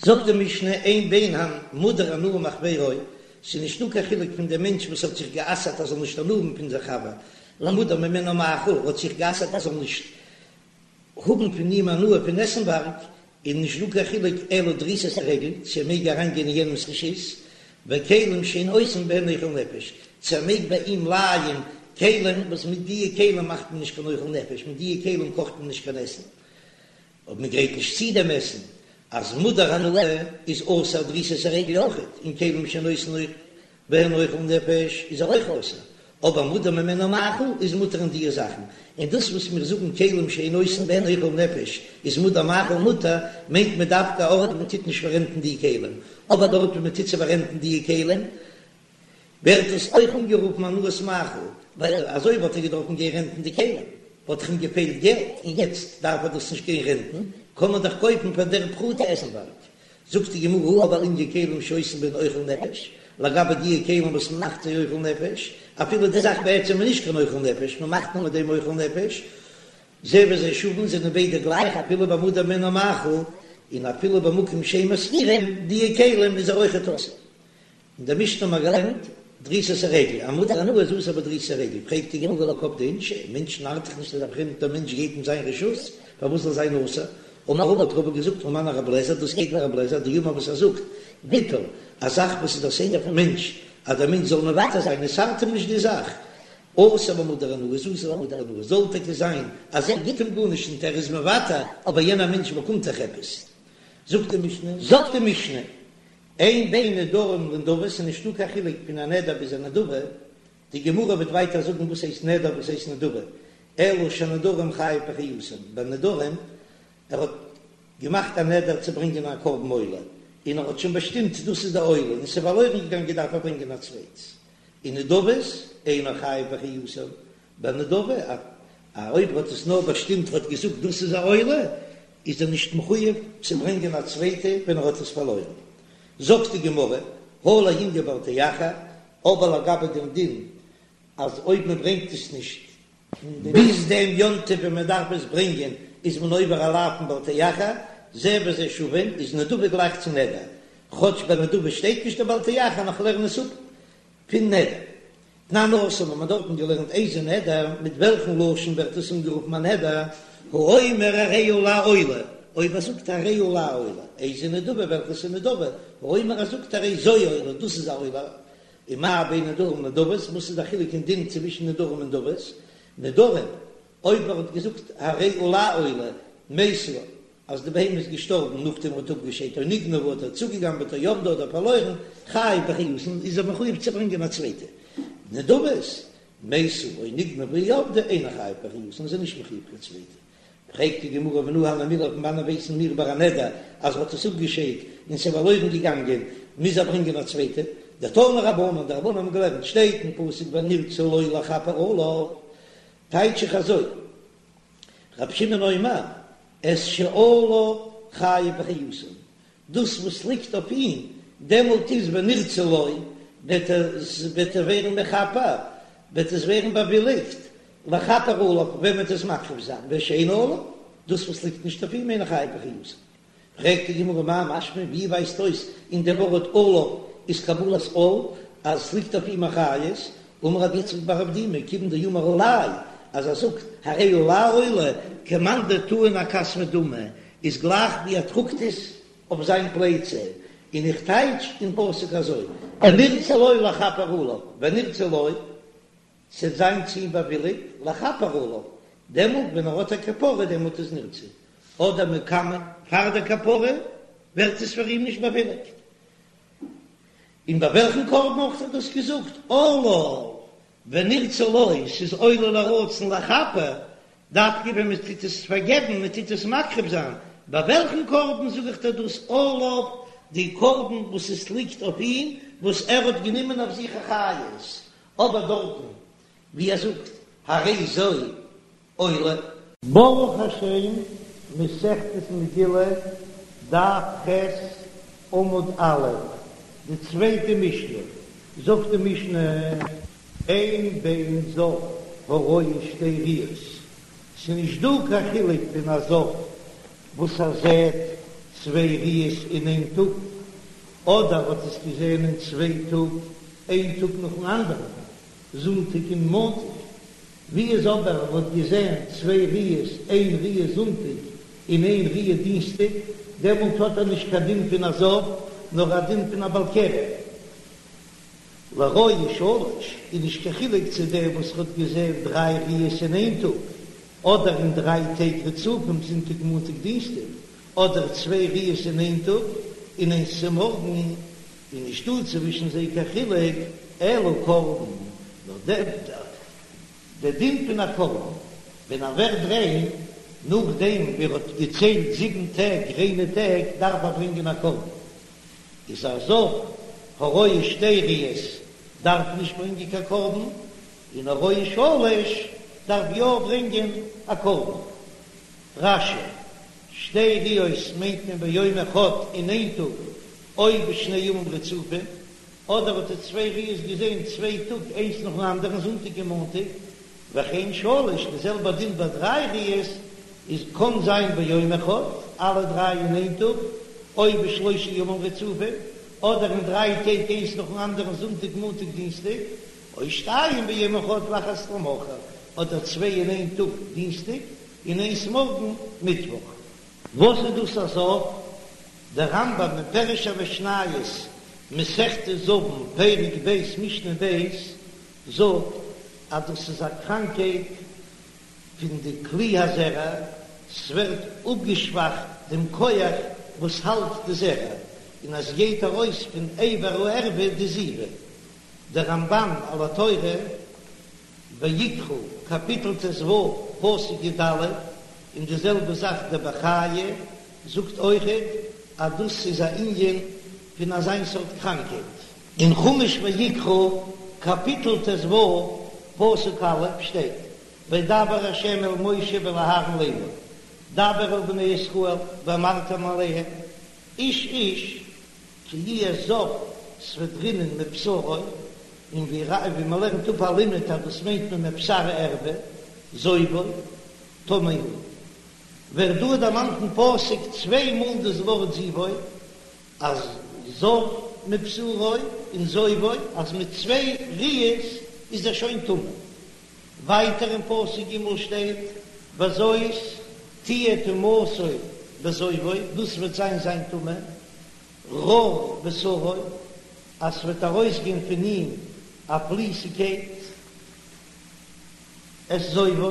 זאגט די משנה אין בין המודר הנאה מחבירו, ס'איז נישטא קיין חילוק פון דעם מענטש וואס האט זיך גע'אסר'ט ער זאל נישט הנאה האבן פון זיין חבר, למודר ממנו מאכל, האט זיך גע'אסר'ט ער זאל נישט האבן פון אים הנאה פון עסנווארג, איז נישט דא קיין חילוק אלא דריסת הרגל צו ער מעג אריינגיין אין יענעמ'ס רשות, וכלים שאין עושים בהן אוכל נפש, צו ער מעג ביי אים לייען כלים וואס מיט דיע כלים מאכט מען נישט קיין אוכל נפש, מיט דיע כלים קאכט מען נישט קיין עסן, אויב מען גרייט נישט צו דעם עסן, אז מודר הנאה איז אסור דריסת הרגל אויכעט, און כלים שאין עושים בהן אוכל נפש איז ער אויך אסור, אבער מודר ממנו מאכל איז מותר אין דיע זאכן, און דאס וואס מיר זאגן כלים שאין עושים בהן אוכל נפש איז מודר מאכל מותר, מיינט מען דווקא א ארט וואו מען טוט נישט פאררענטן די כלים, אבער דארט וואו מען טוט צו פאררענטן די כלים ווערט דאס אויך אנגערופן הנאת מאכל, ווייל אזוי וואלט ער געדארפן גיין רענטן די כלים, וואלט דאך אים געפעלט געלט, און יעצט דארף ער דאס נישט גיין רענטן, קען מען דאך קויפן פאר דער פרוטה עסנווארג. זאגט די גמרא, אבל לענין כלים שעושים בהן אוכל נפש, לגבי דיע כלים וואס מען מאכט זיי אוכל נפש, אפילו די זאך בעצם איז נישט קיין אוכל נפש, מען מאכט נאר מיט דעם אוכל נפש, זה וזה שווין זענען ביידע גלייך אפילו במודר ממנו מאכל, און אפילו במקום שאין משכירים, דיע כלים איז ער אויכעט אסור. אין דער משנה האט מען געלערנט דריסת הרגל, א מודר הנאה איז אסור בדריסת הרגל, פרעגט די גמרא והא לא קפדי אינשי, מענטשן ארט דאך נישט אז א פרעמדער מענטש גייט אין זיין רשות, פארוואס זאל זיין אסור? אמר רבא האט רבא געזאגט הא מני רב לעזער, דאס גייט ווי רב לעזער דאמר וואס ער זאגט, ויתור, א זאך וואס איז דער סדר פון מענטש, אז דער מענטש זאל מוותר זיין, עס ארט אים נישט די זאך, אסור במודר הנאה איז אסור במודר הנאה, זאל טאקע זיין אז ער גיט אים גארנישט און ער איז מוותר, אבער יענער מענטש באקומט דאך עפעס. זאגט די משנה, זאגט די משנה, אין בין נדרים לנדבות, ס'איז נישטא קיין חילוק פון א נדר ביז א נדבה, די גמרא וועט ווייטער זאגן וואס הייסט נדר וואס הייסט נדבה, אלא שהנדרים חייב באחריותן, ביי נדרים, ער האט געמאכט א נדר צו ברענגען א קרבן עולה, און ער האט שוין באשטימט דאס איז די עולה, און ס'איז פארלוירן געגאנגען דארף ער ברענגען א צווייטס, און נדבות אינו חייב באחריותן, ביי נדבה, א אויב ער האט עס נאר באשטימט האט געזאגט דאס איז א עולה, איז ער נישט מחויב צו ברענגען א צווייטע ווען ער האט עס פארלוירן. זאגט די גמרא, הא לענין בל תאחר, אבער לגבי דעם דין אז אויב מען ברענגט עס נישט ביז דעם יום טוב ווען מען דארף עס ברענגען איז מען עובר א לאו פון בל תאחר, זה וזה שווין, איז נדבה גלייך צו נדר, כאטש ביי נדבה שטייט נישט די בל תאחר נאר כ'לערן עס אפ פון נדר. תנן התם האט מען דארטן געלערנט איזה נדר, מיט וועלכן לשון ווערט עס אנגערופן א נדר, האומר הרי עלי עולה, אויב ער זאגט הרי עלי עולה, איזה נדבה וועלכעס איז נדבה, האומר ער זאגט הרי זו עולה, דאס איז א עולה, ומה בין נדרים לנדבות, וואס איז די חילוק אין דין צווישן נדרים און נדבות, נדרים, אויב ער האט געזאגט הרי עלי עולה, מתה, אז די בהמה איז געשטארבן נאכדעם ער האט אפגעשיידט או נגנבה האט ער צוגעגנבעט או אבדה אדער פארלוירן, חייב באחריותן איז ער מחויב צו ברענגען א צווייטע נדבות, מתה או נגנבה או אבדה אינו חייב באחריותן איז ער נישט מחויב קיין צווייטע. פרעגט די גמרא מנא הני מילי פון וואנען ווייסן מיר ביי א נדר אז ער האט עס אפגעשיידט און ס'איז פארלוירן געגאנגען מוז ער ברענגען א צווייטע? דתנו רבנן די רבנן האבן געלערנט שטייט אין פסוק ונרצה לו לכפר עליו טייטש איך אזוי רבי שמעון אומר, את שעליו חייב באחריותן, דאס וואס ליגט אויף אים, דעמאלט איז ונרצה לו, וועט ער וועט ער ווערן מכפר, וועט עס ווערן באוויליגט, לכפר עליו, ווען מען וועט עס מקריב זיין, ושאינו עליו, דאס וואס ליגט נישט אויף אים אינו חייב באחריותן. פרעגט די גמרא מאי משמע, ווי ווייזט אויס אין דעם ווארט עליו איז קבלת עול, אז עס ליגט אויף אים אחריות, אמר רב יצחק בר אבדימי, כיוון דאמר עלי, אז ער זאגט הרי עלי עולה, כמאן דטעין אכתפיה דמי, איז גלייך ווי ער טראגט עס אויף זיין פלייצע, און איך טייטש אין פסוק אזוי, ונרצה לו לכפר עליו, ונרצה לו, ס'וועט זיין צו אים באוויליגט, לכפר עליו, דעמאלט ווען ער האט א כפרה דעמאלט איז נרצה, אדער מקמי, פאר דער כפרה ווערט עס פאר אים נישט באוויליגט. און ביי וועלכן קרבן האט ער דאס געזאגט? עליו, ונרצה לו, ס'איז עולה לרצון לכפר, דווקא ווען מען טוט עס פארגעבן, מען טוט עס מקריב זיין, ביי וועלכן קרבן זאג איך דיר דאס עליו, די קרבן וואס עס ליגט אויף אים, וואס ער האט גענומען אויף זיך אחריות, אבער דארטן ווי ער זאגט הרי זו עולה. ברוך השם, מסכת מגילה, דף ח', עמוד א', די צווייטע משנה, זאגט די משנה, אין בין זב הרואה שתי ראיות, ס'נישט דא קיין חילוק פון א זב וואס ער זעט. צוויי ראיות אין איין טאג, אדער האט עס געזען אין צוויי טאג, איין טאג נאכן אנדערן, זונטאג און מאנטאג. ווי איז אבער ער האט געזען צוויי ראיות, איין ראיה זונטאג און איין ראיה דינסטאג, דעמאלט האט ער נישט קיין דין פון א זב, נאר א דין פון א בעל קרי. לרואה שלש איז נישט קיין חילוק צו דער וואס האט געזען דריי ראיות אין איין טאג, אדער אין דריי טעג רצופים זונטאג מאנטאג דינסטאג, אדער צוויי ראיות אין איין טאג און איינס צו מארגן, איז נישטא צווישן זיי קיין חילוק, אלא קרבן, נאר דער דין פון א קרבן ווען ער ווערט ריין, נאכדעם ווי ער האט געציילט זיבן טעג ריינע טעג, דארף ער ברענגען א קרבן, איז א זב הרואה שתי ראיות דארף נישט ברענגען קיין קרבן, און הרואה שלש דארף יא ברענגען א קרבן. רש"י, שתי ראיות מיינט מען ביום אחד אין איין טאג, או בשני ימים רצופים, אדער האט ער צוויי ראיות געזען צוויי טאג איינס נאכן אנדערן זונטאג און מאנטאג, וכן שלש, די זעלבע דין ביי דריי ראיות איז קאן זיין ביום אחד, אלע דריי אין איין טאג, או בשלושה ימים רצופים, אדער אין דריי טעג איינס נאכן אנדערן זונטאג מאנטאג דינסטאג, או שתיים ביום אחד ואחת למחר, אדער צוויי אין איין טאג דינסטאג און איינס מארגן מיטוואך. וואס איז דאס א זב? דער רמב"ם אין פירוש המשניות מסכת זבין פרק ב' משנה ב' זאגט אז דאס איז א קראנקייט פון די כלי הזרע, ס'ווערט אפגעשוואכט דעם כח וואס האלט די זרע, און עס גייט ארויס פון אבר הערווה די זיבה. דער רמב"ן על התורה, ויקרא, קאפיטל ט"ו, פסוק י"ד, און די זעלבע זאך דער בחיי זאגט אויכעט אז דאס איז א ענין פון אזיין סארט קראנקייט. אין חומש ויקרא, קאפיטל ט"ו, פסוק א', שטייט, וידבר ה' אל משה ואל אהרן לאמור, דבר אל בני ישראל ואמרתם אליהם, איש איש כי יהיה זב ס'וועט רינען מבשרו, און ווי ווי מ'לערנט אפ א לימוד אז דאס מיינט מען מבשר הערווה, זובו, טמא הוא. ווערט דא דערמאנט אין פסוק צוויי מאל דאס ווארט זיבו, אז זב מבשרו און זובו, אז מיט צוויי ראיות איז ער שוין טמא. ווייטער אין פסוק ג' שטייט וזאת תהיה טומאתו בזובו, דאס וועט זיין זיין טומאה, רור בשרו, אז ס'וועט ארויסגיין פון אים א פליסיגקייט, את זובו,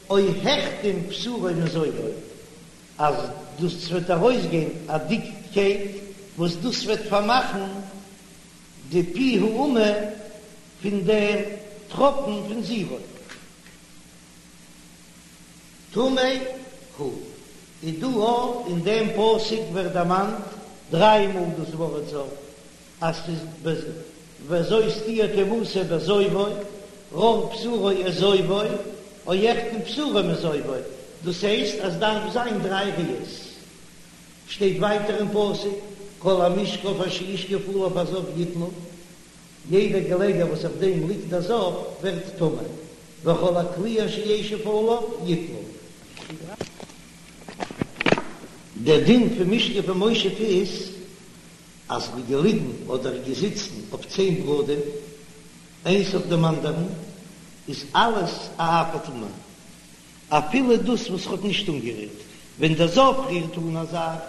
או החתים בשרו מזובו, אז דאס וועט ארויסגיין א דיקקייט וואס דאס וועט פארמאכן די פי האמה פון דעם טראפן פון זיבו. טמא הוא. איז דא אויך אין דעם פסוק ווערט דערמאנט דריי מאל דאס ווארט זב, אז ס'איז וזאת תהיה טומאתו בזובו, רור בשרו את זובו, או החתים בשרו מזובו, דאס הייסט אז דארף זיין דריי ראיות. שטייט ווייטער אין פסוק, כל המשכב אשר ישכב עליו הזב יטמא, יעדער געלעגער וואס אויף דעם ליגט דער זב ווערט טמא, וכל הכלי אשר ישב עליו יטמא. דער דין פון משכב ומושב איז אז מ'איז געליגן אדער געזיצן אויף צען בגדים איינס אויף דעם אנדערן איז אלעס א אב הטומאה, אפילו דאס וואס האט נישט אנגערירט, ווען דער זב רירט אן א זאך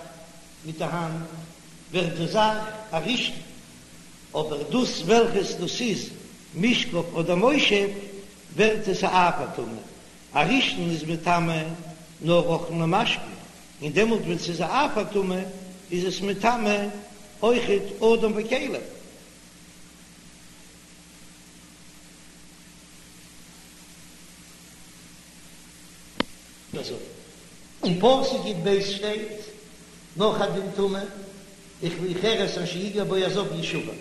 מיט די האנט ווערט די זאך א ראשון, אבער דאס וועלכעס דאס איז משכב אדער מושב ווערט עס א אב הטומאה, א ראשון איז מטמא נאר אוכלין ומשקין, און דעמאלט ווען ס'איז א אב הטומאה איז עס מטמא אויכעט אדם וכלים. אזוי אין פסוק י"ב שטייט נאך א דין טומאה, וכלי חרס אשר יגע בו הזב ישבר,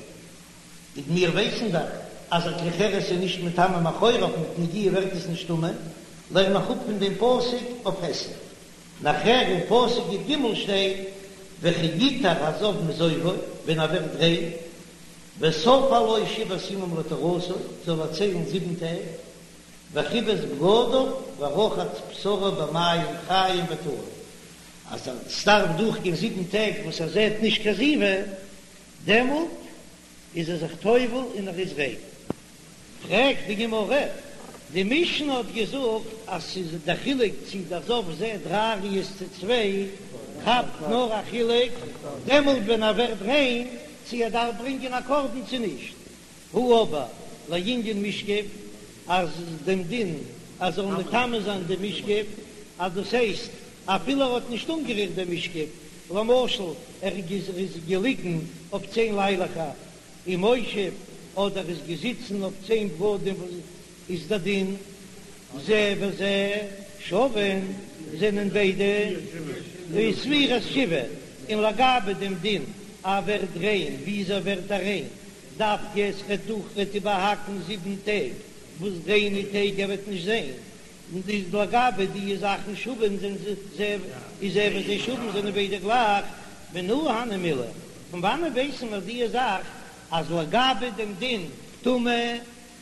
און מיר ווייסן דאך אז א כלי חרס איז נישט מטמא מאחוריו מיט נגיעה ווערט עס נישט טמא, לערן איך אפ פון דעם פסוק אויף היסט. נאכער אין פסוק י"ג שטייט וכי יטהר הזב מזובו, ווען ער ווערט ריין, וספר לו שבעת ימים לטהרתו, זאל ער ציילן זיבן טעג, וכיבס בגדיו ורחץ בשרו במים חיים וטהר. אז עס דארף דורכגיין זיבן טעג וואס ער זעט נישט קיין זיבה, דעמאלט איז ער זיך טובל און ער איז ריין. פרעגט די גמרא, די משנה האט געזאגט אז ס'איז די חילוק צי דער זב זעט דריי ראיות צו צוויי, כאפט נאר א חילוק דעמאלט ווען ער ווערט ריין צי ער דארף ברענגען א קרבן צו נישט, הא אבער לענין משכב אז דעם דין אז זאל מטמא זיין דעם משכב, אז דאס הייסט אפילו ער האט נישט אנגערירט דעם משכב, למשל ער איז געליגן אויף צען ליילעכער ומושב אדער איז געזיצן אויף צען בגדים וואס איז דער דין זה וזה שווין זענען ביידע ספירת שבעה און לגבי דעם דין אז ער ווערט ריין וויאזוי ווערט ער ריין דווקא עס וועט דורך וועט איבערהאקן זיבן טעג וואס ריינע טעג ער וועט נישט זען און איז לגבי די זאכן שווין זענען זה איז זה וזה שווין זענען ביידע גלייך, מנא הני מילי, פון וואנען ווייסן מיר די זאך אז לגבי דעם דין טומאה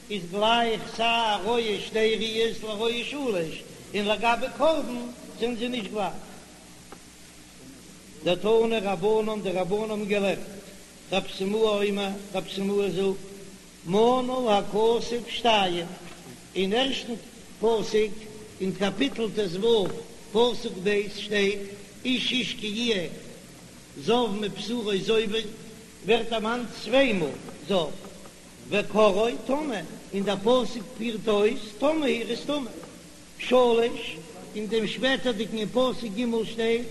איז גלייך סיי א רואה שתי ראיות לרואה שלש, און לגבי קרבן זענען זיי נישט גלייך. דתנו רבנן, די רבנן האבן געלערנט, רב סימאי אומר, רב סימאי זאגט, מנה הכתוב שתיים, אין ערשטן פסוק אין קאפיטל ט"ו פסוק ב' שטייט איש איש כי יהיה זב מבשרו זובו, ווערט דערמאנט צוויי מאל זב, וקראו טמא, און דער פסוק פירט אויס טמא הוא ער איז טמא. שלש, אין דעם שפעטערדיגן אין פסוק ג' שטייט,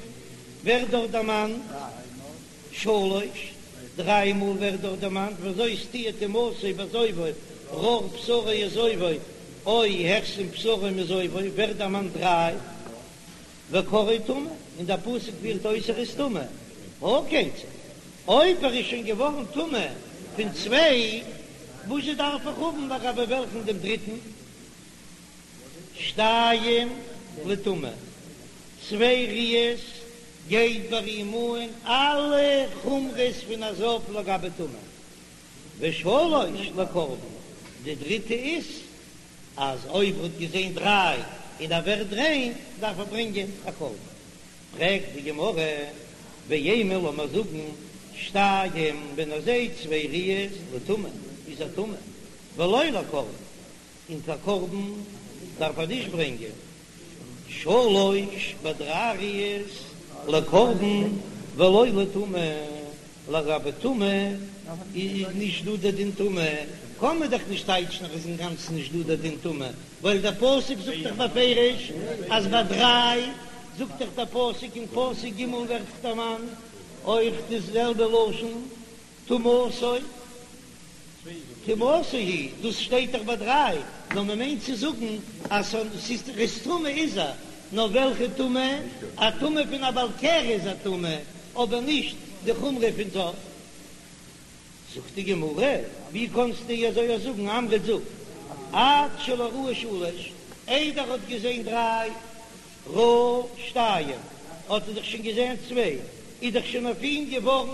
ווערט דארט דערמאנט שלש, דריי מאל ווערט דארט דערמאנט וזאת תהיה טומאתו בזובו רר בשרו וזובו או הכסים בשרו מזובו ווערט דערמאנט דריי, וקראו טמא, און דער פסוק פירט אויס ער איז טמא, הא כיצד, אויב ער איז שוין געווארן טמא פון צוויי, וואזשע דארף איך האבן לגבי וועלכן דעם דריטן? שתיים לטומאה, צוויי ראיות גייט ביי אים אן אלע חומרות פון א זב לגבי טומאה, ושלש לקרבן, די דריטע איז אז אויב ער האט געזען דריי און ער ווערט ריין דארף ער ברענגען א קרבן. פרעגט די גמרא, ואימא לאמער זאגן שתיים ווען ער זעט צוויי ראיות לטומאה איז ער טמא ולא לקרבן, און קיין קרבן דארף ער נישט ברענגען, שלש ביי דריי ראיות לקרבן ולא לטומאה, לגבי טומאה איז נישט דא דער דין טומאה, קען מען דאך נישט טייטשן אז עס איז אינגאנצן נישט דא דער דין טומאה, ווייל דער פסוק זאגט דאך בפירוש אז ביי דריי זאגט דאך דער פסוק אין פסוק ג' ווערט דערמאנט אויך די זעלבע לשון טומאתו. טומאתו היא, דאס שטייט דאך ביי דריי, נאר מען מיינט צו זאגן אז ס'איז ר'איז טמא איז ער, נאר וועלכע טומאה? א טומאה פון א בעל קרי איז א טמא, אבער נישט די חומרא פון זב. זאגט די גמרא, ווי קענסטו אזוי זאגן, אמרת זאג, עד שלא ראה שלש, איידער ער האט געזען דריי, ראה שתיים, האט ער דאך שוין געזען צוויי, איז דאך שוין אויף אים געווארן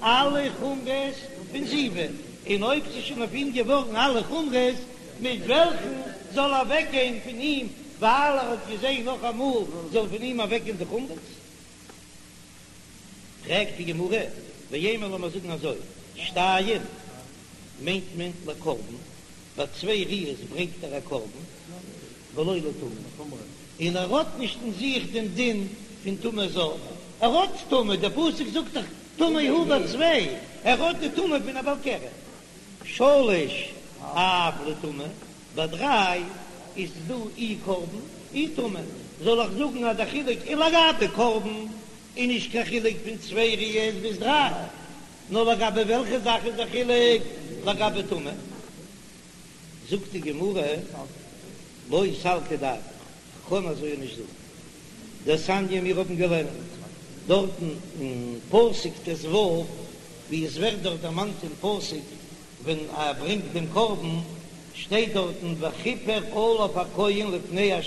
אלע חומרות פון זיבה, און אויב ס'איז שוין אויף אים געווארן אלע חומרות, מיט וועלכן זאל אוועקגיין פון אים, ווייל ער האט געזען נאך אמאל, זאל פון אים אוועקגיין די חומרות? פרעגט די גמרא, ואימא לאמיר זאגן אזוי, שתיים מיינט מען לקרבן, ביי צוויי ראיות ברענגט ער א קרבן, ולא לטומאה, און ער האט נישט אין זיך דעם דין פון טומאת זב, ער האט טומאה, דער פסוק זאגט דאך טמא הוא ביי צוויי, ער האט די טומאה פון א בעל קרי. שלש אף לטומאה, ביי דריי איז דא אי קרבן אי טומאה, זאל איך זאגן אז דער חילוק איז לגבי קרבן איז נישט קיין חילוק פון צוויי ראיות ביז דריי, נאר לגבי וועלכע זאך איז דער חילוק לגבי טומאה? זאגט די גמרא, לא סלקא דעתך, כ'קען אזוי נישט זאגן. דתניא מיר האבן געלערנט דארטן אין פסוק ט"ו, ווי עס ווערט דארט דערמאנט אין פסוק ווען ער ברענגט דעם קרבן, שטייט דארטן וכפר עליו הכהן לפני ה'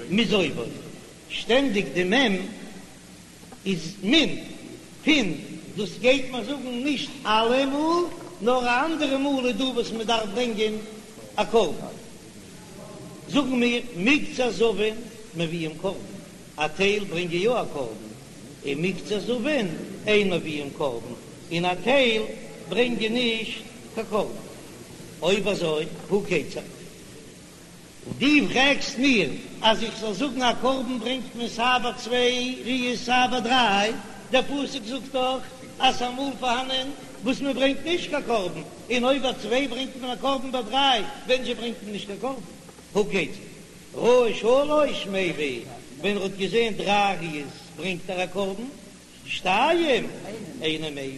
מזובו, שטענדיג די מ' איז מן, פון, דאס גייט מען זאגן נישט אלע מאל, נאר א אנדערע מאל איז דא וואס מען דארף ברענגען א קרבן, זאגן מיר מקצת זבין מביאים קרבן, א טייל ברענגען יא א קרבן. און מקצת זבין אין מביאין קרבן, און א טייל ברענגען נישט קיין קרבן. אויב אזוי הא כיצד? דו פרעגסט מיר אז איך זאל זאגן א קרבן ברענגט מען סיי ביי צוויי ראיות סיי ביי דריי, דער פסוק זאגט דאך אז ס'איז אמאל פארהאנען וואס מען ברענגט נישט קיין קרבן, און אויב ביי צוויי ברענגט מען א קרבן ביי דריי ווען זשע ברענגט מען נישט קיין קרבן? הא כיצד? ראה שלש מביא, ווען ער האט געזען דריי ראיות ברענגט ער א קרבן, שתיים אינו מביא,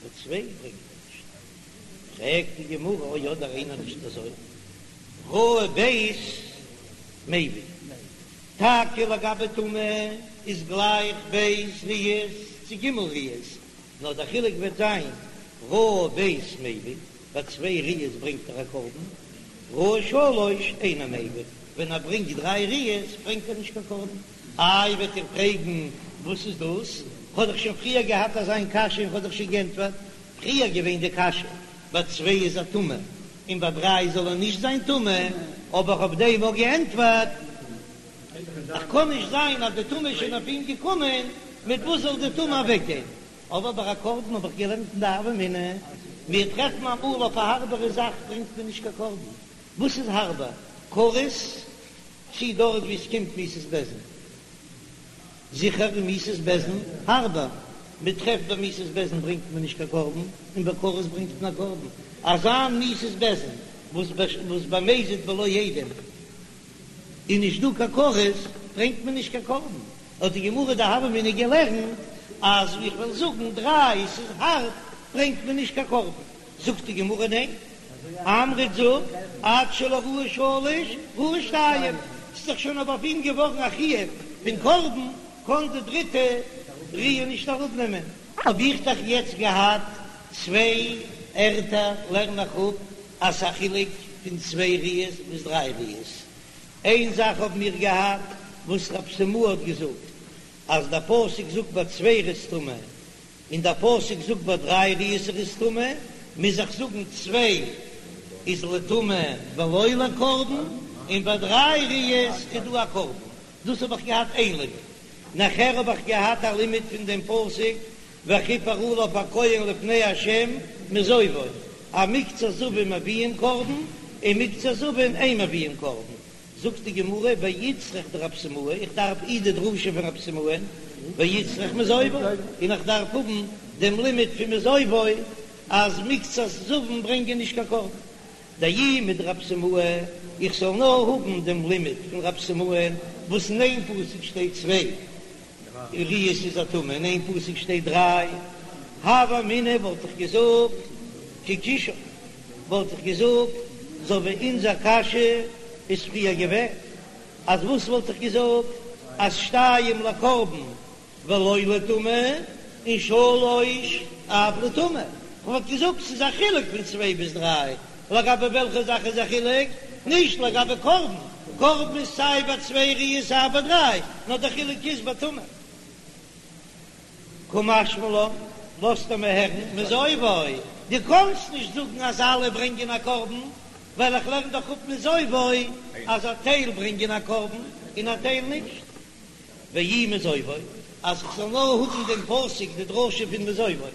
ביי צוויי ברענגט ער נישט. פרעגט די גמרא או אדער אינו נישט אזוי, ראה ב' מביא, טאקע לגבי טומאה איז גלייך ב' ראיות צו ג' ראיות, נאר דער חילוק וועט זיין ראה ב' מביא, ביי צוויי ראיות ברענגט ער א קרבן, ראה שלש אינו מביא, ווען ער ברענגט דריי ראיות ברענגט ער נישט קיין קרבן. איי וועט איר פרעגן וואס איז דאס? כ'האב דאך שוין פריער געהאט אזא מין קשיא און כ'האב דאך שוין גענטפערט. פריער געווען די קשיא ביי צוויי איז ער טמא און ביי דריי זאל ער נישט זיין טמא, האב איך אויף דעם אויך געענטפערט, אז קען נישט זיין אז די טומאה איז שוין אויף אים געקומען, מיט וואס זאל די טומאה אוועקגיין? אבער ביי א קרבן האב איך געלערנט אין די הוה אמינא, מיר טרעפן אמאל אויף א הארבערע זאך ברענגט מען נישט קיין קרבן, וואס איז הארבער? כרת צי דארט ווי עס קומט מיתת בית דין? זיכער איז מיתת בית דין הארבער, מען טרעפט ביי מיתת בית דין ברענגט מען נישט קיין קרבן, און ביי כרת ברענגט מען א קרבן, אזא מיתת בית דין וואס במזיד בלא עדים איז נישט דא קיין כרת, ברענגט מען נישט קיין קרבן, האט די גמרא די הוה אמינא געלערנט אז איך וועל זאגן דריי ס'איז הארב ברענגט מען נישט קיין קרבן, זאגט די גמרא ניין, אמרת זאג עד שלא ראה שלש ראה שתיים, ס'איז דאך שוין אבער אויף אים געווארן א חיוב פון קרבן, קען די דריטע ראיה נישט אראפנעמען. האב איך דאך יעצט געהאט צוויי ערטער לערן איך אפ אז ס'א חילוק פון צוויי ראיות ביז דריי ראיות. איין זאך האבן מיר געהאט וואס רב סימאי האט געזאגט אז דער פסוק זאגט ביי צוויי ער איז טמא און דער פסוק זאגט ביי דריי ראיות ער איז טמא, מוז איך זאגן צוויי איז לטומאה ולא לקרבן, און ביי דריי ראיות איז דא א קרבן. דאס האב איך געהאט איין לימוד. נאכער האב איך געהאט א לימוד פון דעם פסוק וכפר עליו הכהן לפני ה' מזובו, אז מקצת זבין מביאין קרבן און מקצת זבין אין מביאין קרבן. זאגט די גמרא ואיצטריך דרב סימאי, איך דארף אי די דרשה פון רב סימאי, ואיצטריך מזובו, און איך דארף האבן דעם לימוד פון מזובו אז מקצת זבין ברענגען נישט קיין קרבן. דאי מדרב סימאי, איך זאל נאר האבן דעם לימוד פון רב סימאי וואס אין איין פסוק שטייט צוויי ראיות איז ער טמא, אין איין פסוק שטייט דריי, הוה אמינא וואלט איך געזאגט כקושיין, וואלט איך געזאגט אזוי ווי אונזער קשיא איז פריער געווען, אז וואס וואלט איך געזאגט אז שתיים לקרבן ולא לטומאה, און שלש אף לטומאה. כ'וואלט געזאגט ס'איז א חילוק פון צוויי ביז דריי, לגבי וועלכע זאך איז א חילוק? נישט לגבי קרבן, קרבן איז סיי ביי צוויי ראיות סיי ביי דריי, נאר די חילוק איז ביי טומאה. קא משמע לן, לאזט ער מיר הערן, מזובו, דו קאנסט נישט זאגן אז אלע ברענגען א קרבן, ווייל איך לערן דאך אפ מזובו אז א טייל ברענגען א קרבן און א טייל נישט. ואי מזובו, אז איך זאל נאר האבן דעם פסוק די דרשה פון מזובו,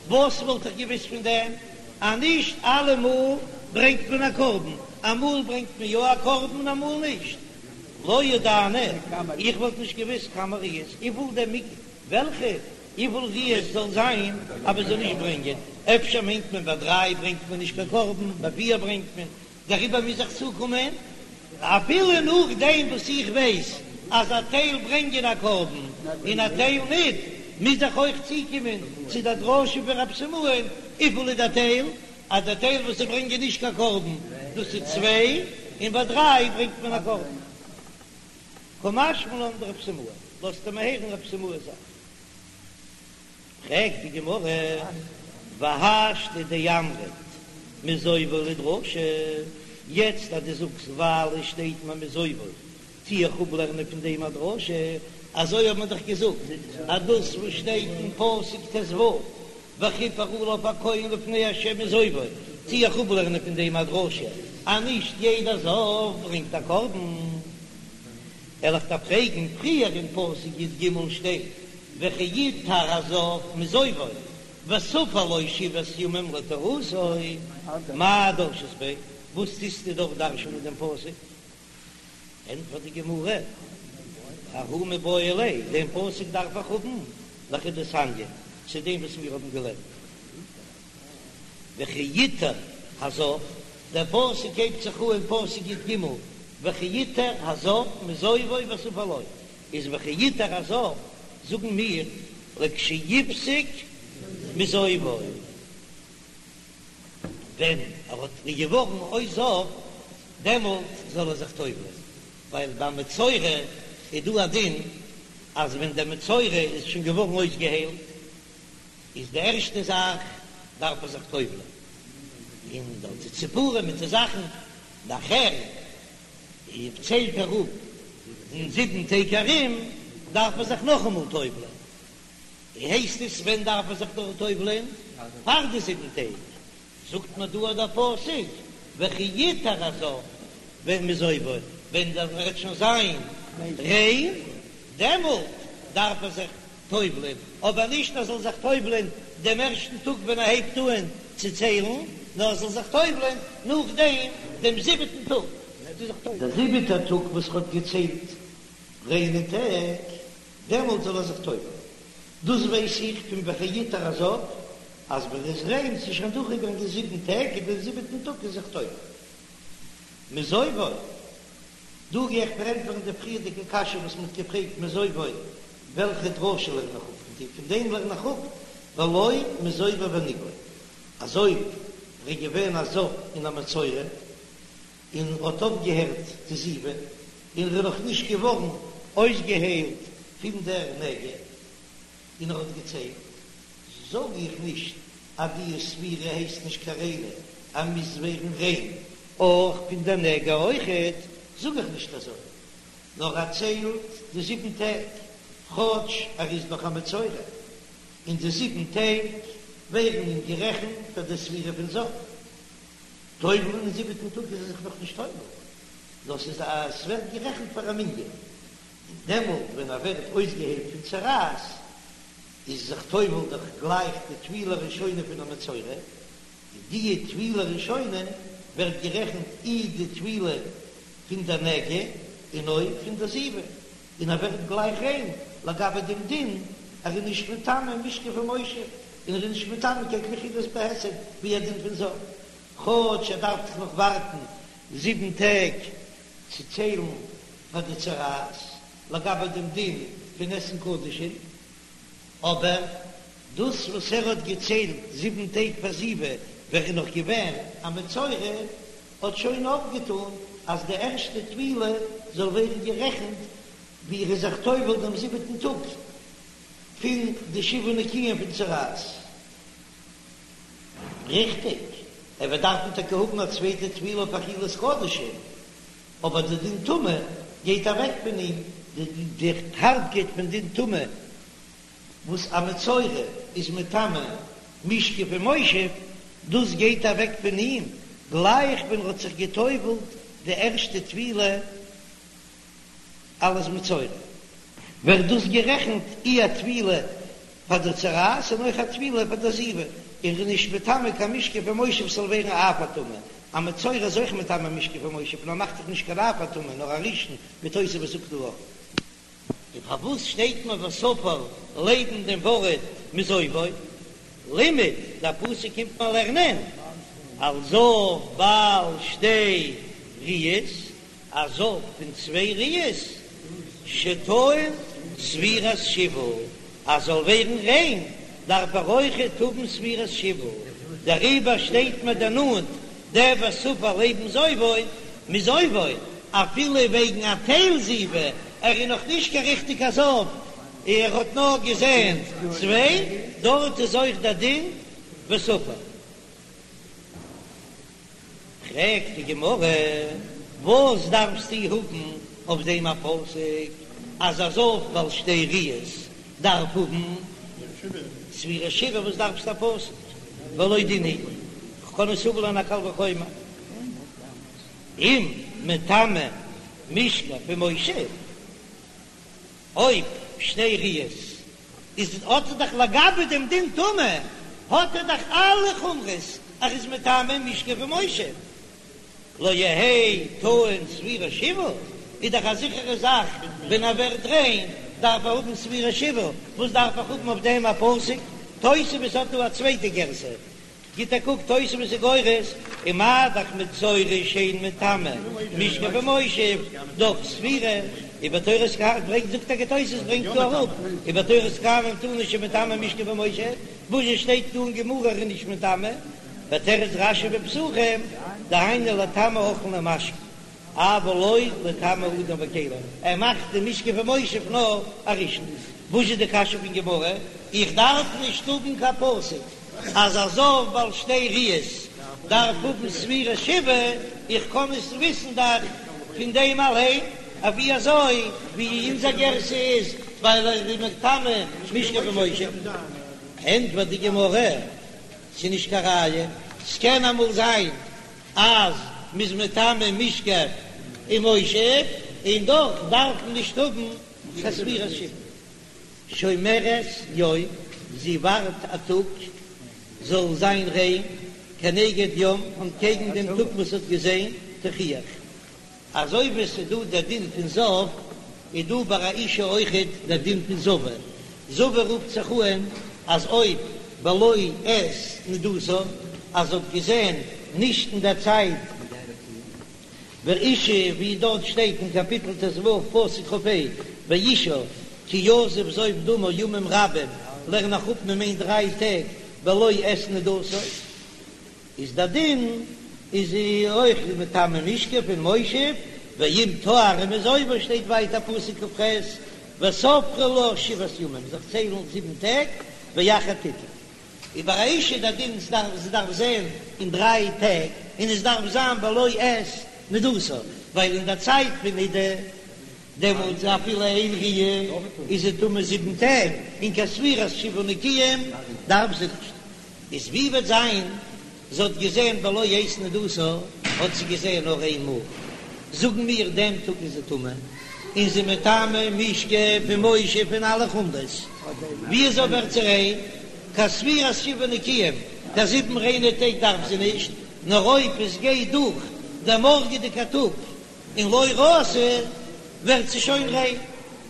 וואס וואלט איך געוואוסט פון דעם אז נישט אלעמאל ברענגט מען א קרבן, אמאל ברענגט מען יא א קרבן און אמאל נישט, לא ידענא, איך וואלט נישט געוואוסט כמה ראיות, וויפיל דער מ וועלכע וויפיל ראיות זאל זיין אז מען זאל נישט ברענגען, אפשר מיינט מען ביי דריי ברענגט מען נישט קיין קרבן, ביי פיר ברענגט מען, דעריבער מוז איך צוקומען, אפילו נאכדעם וואס איך ווייס אז א טייל ברענגען א קרבן און א טייל ניט, מוז איך אויך צוקומען צו דער דרשה פון רב סימאי'ן, וויפיל איז דער טייל? אז דער טייל וואס זיי ברענגען נישט קיין קרבן, דאס איז צוויי, און ביי דריי ברענגט מען א קרבן. קא משמע לן דרב סימאי, לאזט ער מיר הערן רב סימאי'ס זאך. פרעגט די גמרא, והשתא דאמרת מזובו לדרשה, יעצט אז דו זאגסט ווייל עס שטייט מיר מזובו, טו איך אפלערנען פון דעם א דרשה, אזוי האט מען דאך געזאגט אז דאס וואס שטייט אין פסוק ט"ו וכפר עליו הכהן לפני ה' מזובו, טו איך אפלערנען פון דעם א דרשה אז נישט יעדער זב ברענגט א קרבן. וועל איך דיר פרעגן, פריער אין פסוק י"ג שטייט. וכי יטהר הזב מזובו וספר לו שבעת ימים לטהרתו, מאי דרשת ביה? וואס טוסטו דארט דרש'נען דעם פסוק? ענטפערט די גמרא, ההוא מיבעי ליה, דעם פסוק דארף איך האבן לכדתניא, צו דעם וואס מיר האבן געלערנט. וכי יטהר הזב, דער פסוק הייבט זיך אן פסוק י"ג, וכי יטהר הזב מזובו וספר לו, איז וכי יטהר הזב זאגן מיר לכשיפסיק מזובו, ווען ער האט געווארן אויס זב דעמאלט זאל ער זיך טובל'ען, ווייל ביי מצורע איז דא א דין אז ווען דער מצורע איז שוין געווארן אויסגעהיילט איז די ערשטע זאך דארף ער זיך טובל'ען, און דארט די ציפורים מיט די זאכן, נאכער ציילט ער אפ אין זיבן טעג ארום דארף ער זיך נאכאמאל טובל'ען, הייסט עס ווען דארף ער זיך דארט טובל'ען? פאר די זיבן טעג, זאגט מיר דא דער פסוק וכי יטהר הזב ווען מזובו, ווען ער וועט שוין זיין ריין דעמאלט דארף ער זיך טובל'ען, אבער נישט ער זאל זיך טובל'ען דעם ערשטן טאג ווען ער הייבט אהן צו ציילן, נאר ער זאל זיך טובל'ען נאכדעם דעם זיבעטן טאג. דער זיבעטער טאג וואס ער האט געציילט ריינע טעג, דעמאלט זאל ער זיך טובל'ען. דאס ווייס איך פון וכי יטהר הזב, אז ווען ער איז ריין, ס'איז שוין דורכגעגאנגען זיבן טעג, און דעם זיבעטן טאג איז זיך טובל. מזובו, דא גיי איך פארענטפערן די פריערדיגע קשיא וואס מ'האט געפרעגט מזובו, וועלכע דרשה לערן איך אפ פון די, פון דעם לערן איך אפ ולא מזובו ונגעו, אז אויב ער איז געווען א זב און א מצורע, און האט אויפגעהערט די זיבה, און ער איז נאך נישט געווארן אויסגעהיילט פון דער נגע, און ער האט געציילט, זאג איך נישט אז די ספירה הייסט נישט קיין ריינע, ער מוז ווערן ריין אויך פון דער נגע אויכעט, זאג איך נישט אזוי, נאר ער ציילט די זיבן טעג, כאטש ער איז נאך א מצורע, און די זיבן טעג ווערן אים גערעכנט פאר די ספירה פון זב. טובל'ן אין זיבעטן טאג איז ער זיך נאך נישט טובל, נאר ס'איז א ס'ווערט גערעכנט פאר א מנין, און דעמאלט ווען ער ווערט אויסגעהיילט פון צרעת איז זיך טובל דאך גלייך די טבילה ראשונה פון א מצורע, און די טבילה ראשונה ווערט גערעכנט אי די טבילה פון דער נגע און אויך פון דער זיבה, און ער ווערט גלייך ריין לגבי דעם דין, ער איז נישט מטמא משכב ומושב, און ער איז נישט מטמא קיין כלי אכילה בהיסט ווי א דין פון זב, כאטש ער דארף דאך נאך ווארטן זיבן טעג צו ציילן פאר די צרעת לגבי דעם דין פון עסן קדשים, אבער דאס וואס ער האט געציילט זיבן טעג פאר זיבה ווען ער איז נאך געווען א מצורע האט שוין אויפגעטאן אז די ערשטע טבילה זאל ווערן גערעכנט ווי ער איז זיך טובל דעם זיבעטן טאג פון די שבעה נקיים פון צרעת. ריכטיג, ער וועט דארפן טאקע האבן א צווייטע טבילה אויף אכילת קדשים, אבער די דין טומאה גייט אוועק פון אים, די הארבקייט פון דין טומאה וואס א מצורע איז מטמא משכב ומושב, דאס גייט אוועק פון אים גלייך ווען ער האט זיך גע'טובל'ט די ערשטע טבילה אלס מצורע, ווערט דאס גערעכנט אי א טבילה פאר די צרעת און אויך א טבילה פאר די זיבה, און ר'איז נישט מטמא קיין משכב ומושב ס'זאל ווערן אב הטומאה, א מצורע איז אויך מטמא משכב ומושב נאר מאכט זיך נישט קיין אב הטומאה נאר א ראשון ווי תוספות זאגט דא אויך. און פארוואס שטייט מיר וספר לעבן דעם ווארט מזובו? לימד, דער פסוק קומט מיר לערנען על זב בעל שתי ראיות, א זב פון צוויי ראיות, שטעון ספירת שבעה, אז זאל ווערן ריין דארף ער אויכעט האבן ספירת שבעה, דעריבער שטייט מיר דערנאנט דער וספר לעבן זובו מזובו, אפילו וועגן א טייל זיבה, ער איז נאך נישט קיין ריכטיגע זב, ער האט נאר געזען צוויי, דארט איז אויך דער דין וספר. פרעגט די גמרא, וואס דארפסטו האבן אויף דעם א פסוק אז א זב בעל שתי ראיות דארף האבן ספירת שבעה, וואס דארפסטו א פסוק? והלא דין הוא, כ'קען עס אפלערנען א קל וחומר, אם מטמא משכב ומושב, אויב שתי ראיות. איז האט ער דאך לגבי דעם דין טומאה האט ער דאך אלע חומרות אז ער איז מטמא משכב ומושב. לא יהא טעון ספירת שבעה, איז דאך א זיכערע זאך ווען ער ווערט ריין דארף ער האבן ספירת שבעה, וואס דארף איך האבן אויף דעם א פסוק? תוספות האט דא א צווייטע גירסא, גיט א קוק תוספות איז גורס, ומה דאך מצורע שאין מטמא משכב ומושב דאך ספירה, ובתורת כהנים ברענגט זאגט טאקע תוספות ברענגט דא אראפ, ובתורת כהנים תנא שמטמא משכב ומושב, וואס שטייט דא אין גמרא ער איז נישט מטמא? ותירץ רש"י בפסחים, דהיינו לטמא אוכלין ומשקין, אבל לא לטמא אדם וכלים, ער מאכט די משכב ומושב נאר א ראשון. וואס איז די קשיא פון גמרא? איך דארף נישט האבן קיין פסוק אז א זב בעל שתי ראיות דארף האבן ספירת שבעה, איך קען עס וויסן דאך פון דעם אליין, אבי אזוי ווי אונזער גירסא איז ווייל ער איז מטמא משכב ומושב. ענטפערט די גמרא, ס'איז נישט קיין ראיה, ס'קען אמאל זיין אז מ'איז מטמא משכב ומושב און דאך דארף מען נישט האבן קיין ספירת שבעה. שומרת יום, זי ווארט א טאג זאל זיין ריין, כנגד יום, אנטקעגן דעם טאג וואס האט געזען, תוכיח. אזוי ווי עס איז דא דער דין פון זב, איז דא ביי א אישה אויכעט דער דין פון זבה. זבה רופט זיך אהן אז אויב בלא עת נדתה, אז זי האט געזען נישט אין דער צייט ואשה, ווי דארט שטייט אין קאפיטל ט"ו פסוק כ"ה, ואשה כי יזוב זוב דמה ימים רבים, לערן איך אפ מען מיינט דריי טעג בלא עת נדתה. איז דער דין איז זי אויך מטמא משכב און מושב, ואם טהרה מזובה שטייט ווייטער פסוק כ"ח וספרה לה שבעת ימים זיך ציילן זיבן טעג ואחר תטהר. איז ביי א אישה דער דין זי דארף זען אין דריי טעג און עס דארף זיין בלא עת נדתה ווייל אין דער צייט פון נידה דעמאלטס אפילו איין ראיה איז זי טמא זיבן טעג און קיין ספירת שבעה נקיים דארף זי נישט. איז ווי וועט זיין זי האט געזען בלא עת נדתה, האט זי געזען נאר איין מאל, זאגן מיר דעם טאג איז זי טמא, און זי מטמא משכב ומושב און אלע חומרות, ווי אזוי ווערט זי ריין? קיין ספירת שבעה נקיים, קיין זיבן ריינע טעג דארף זי נישט, נאר אויב עס גייט דורך דער מארגעדיגע טאג און לא ראתה ווערט זי שוין ריין.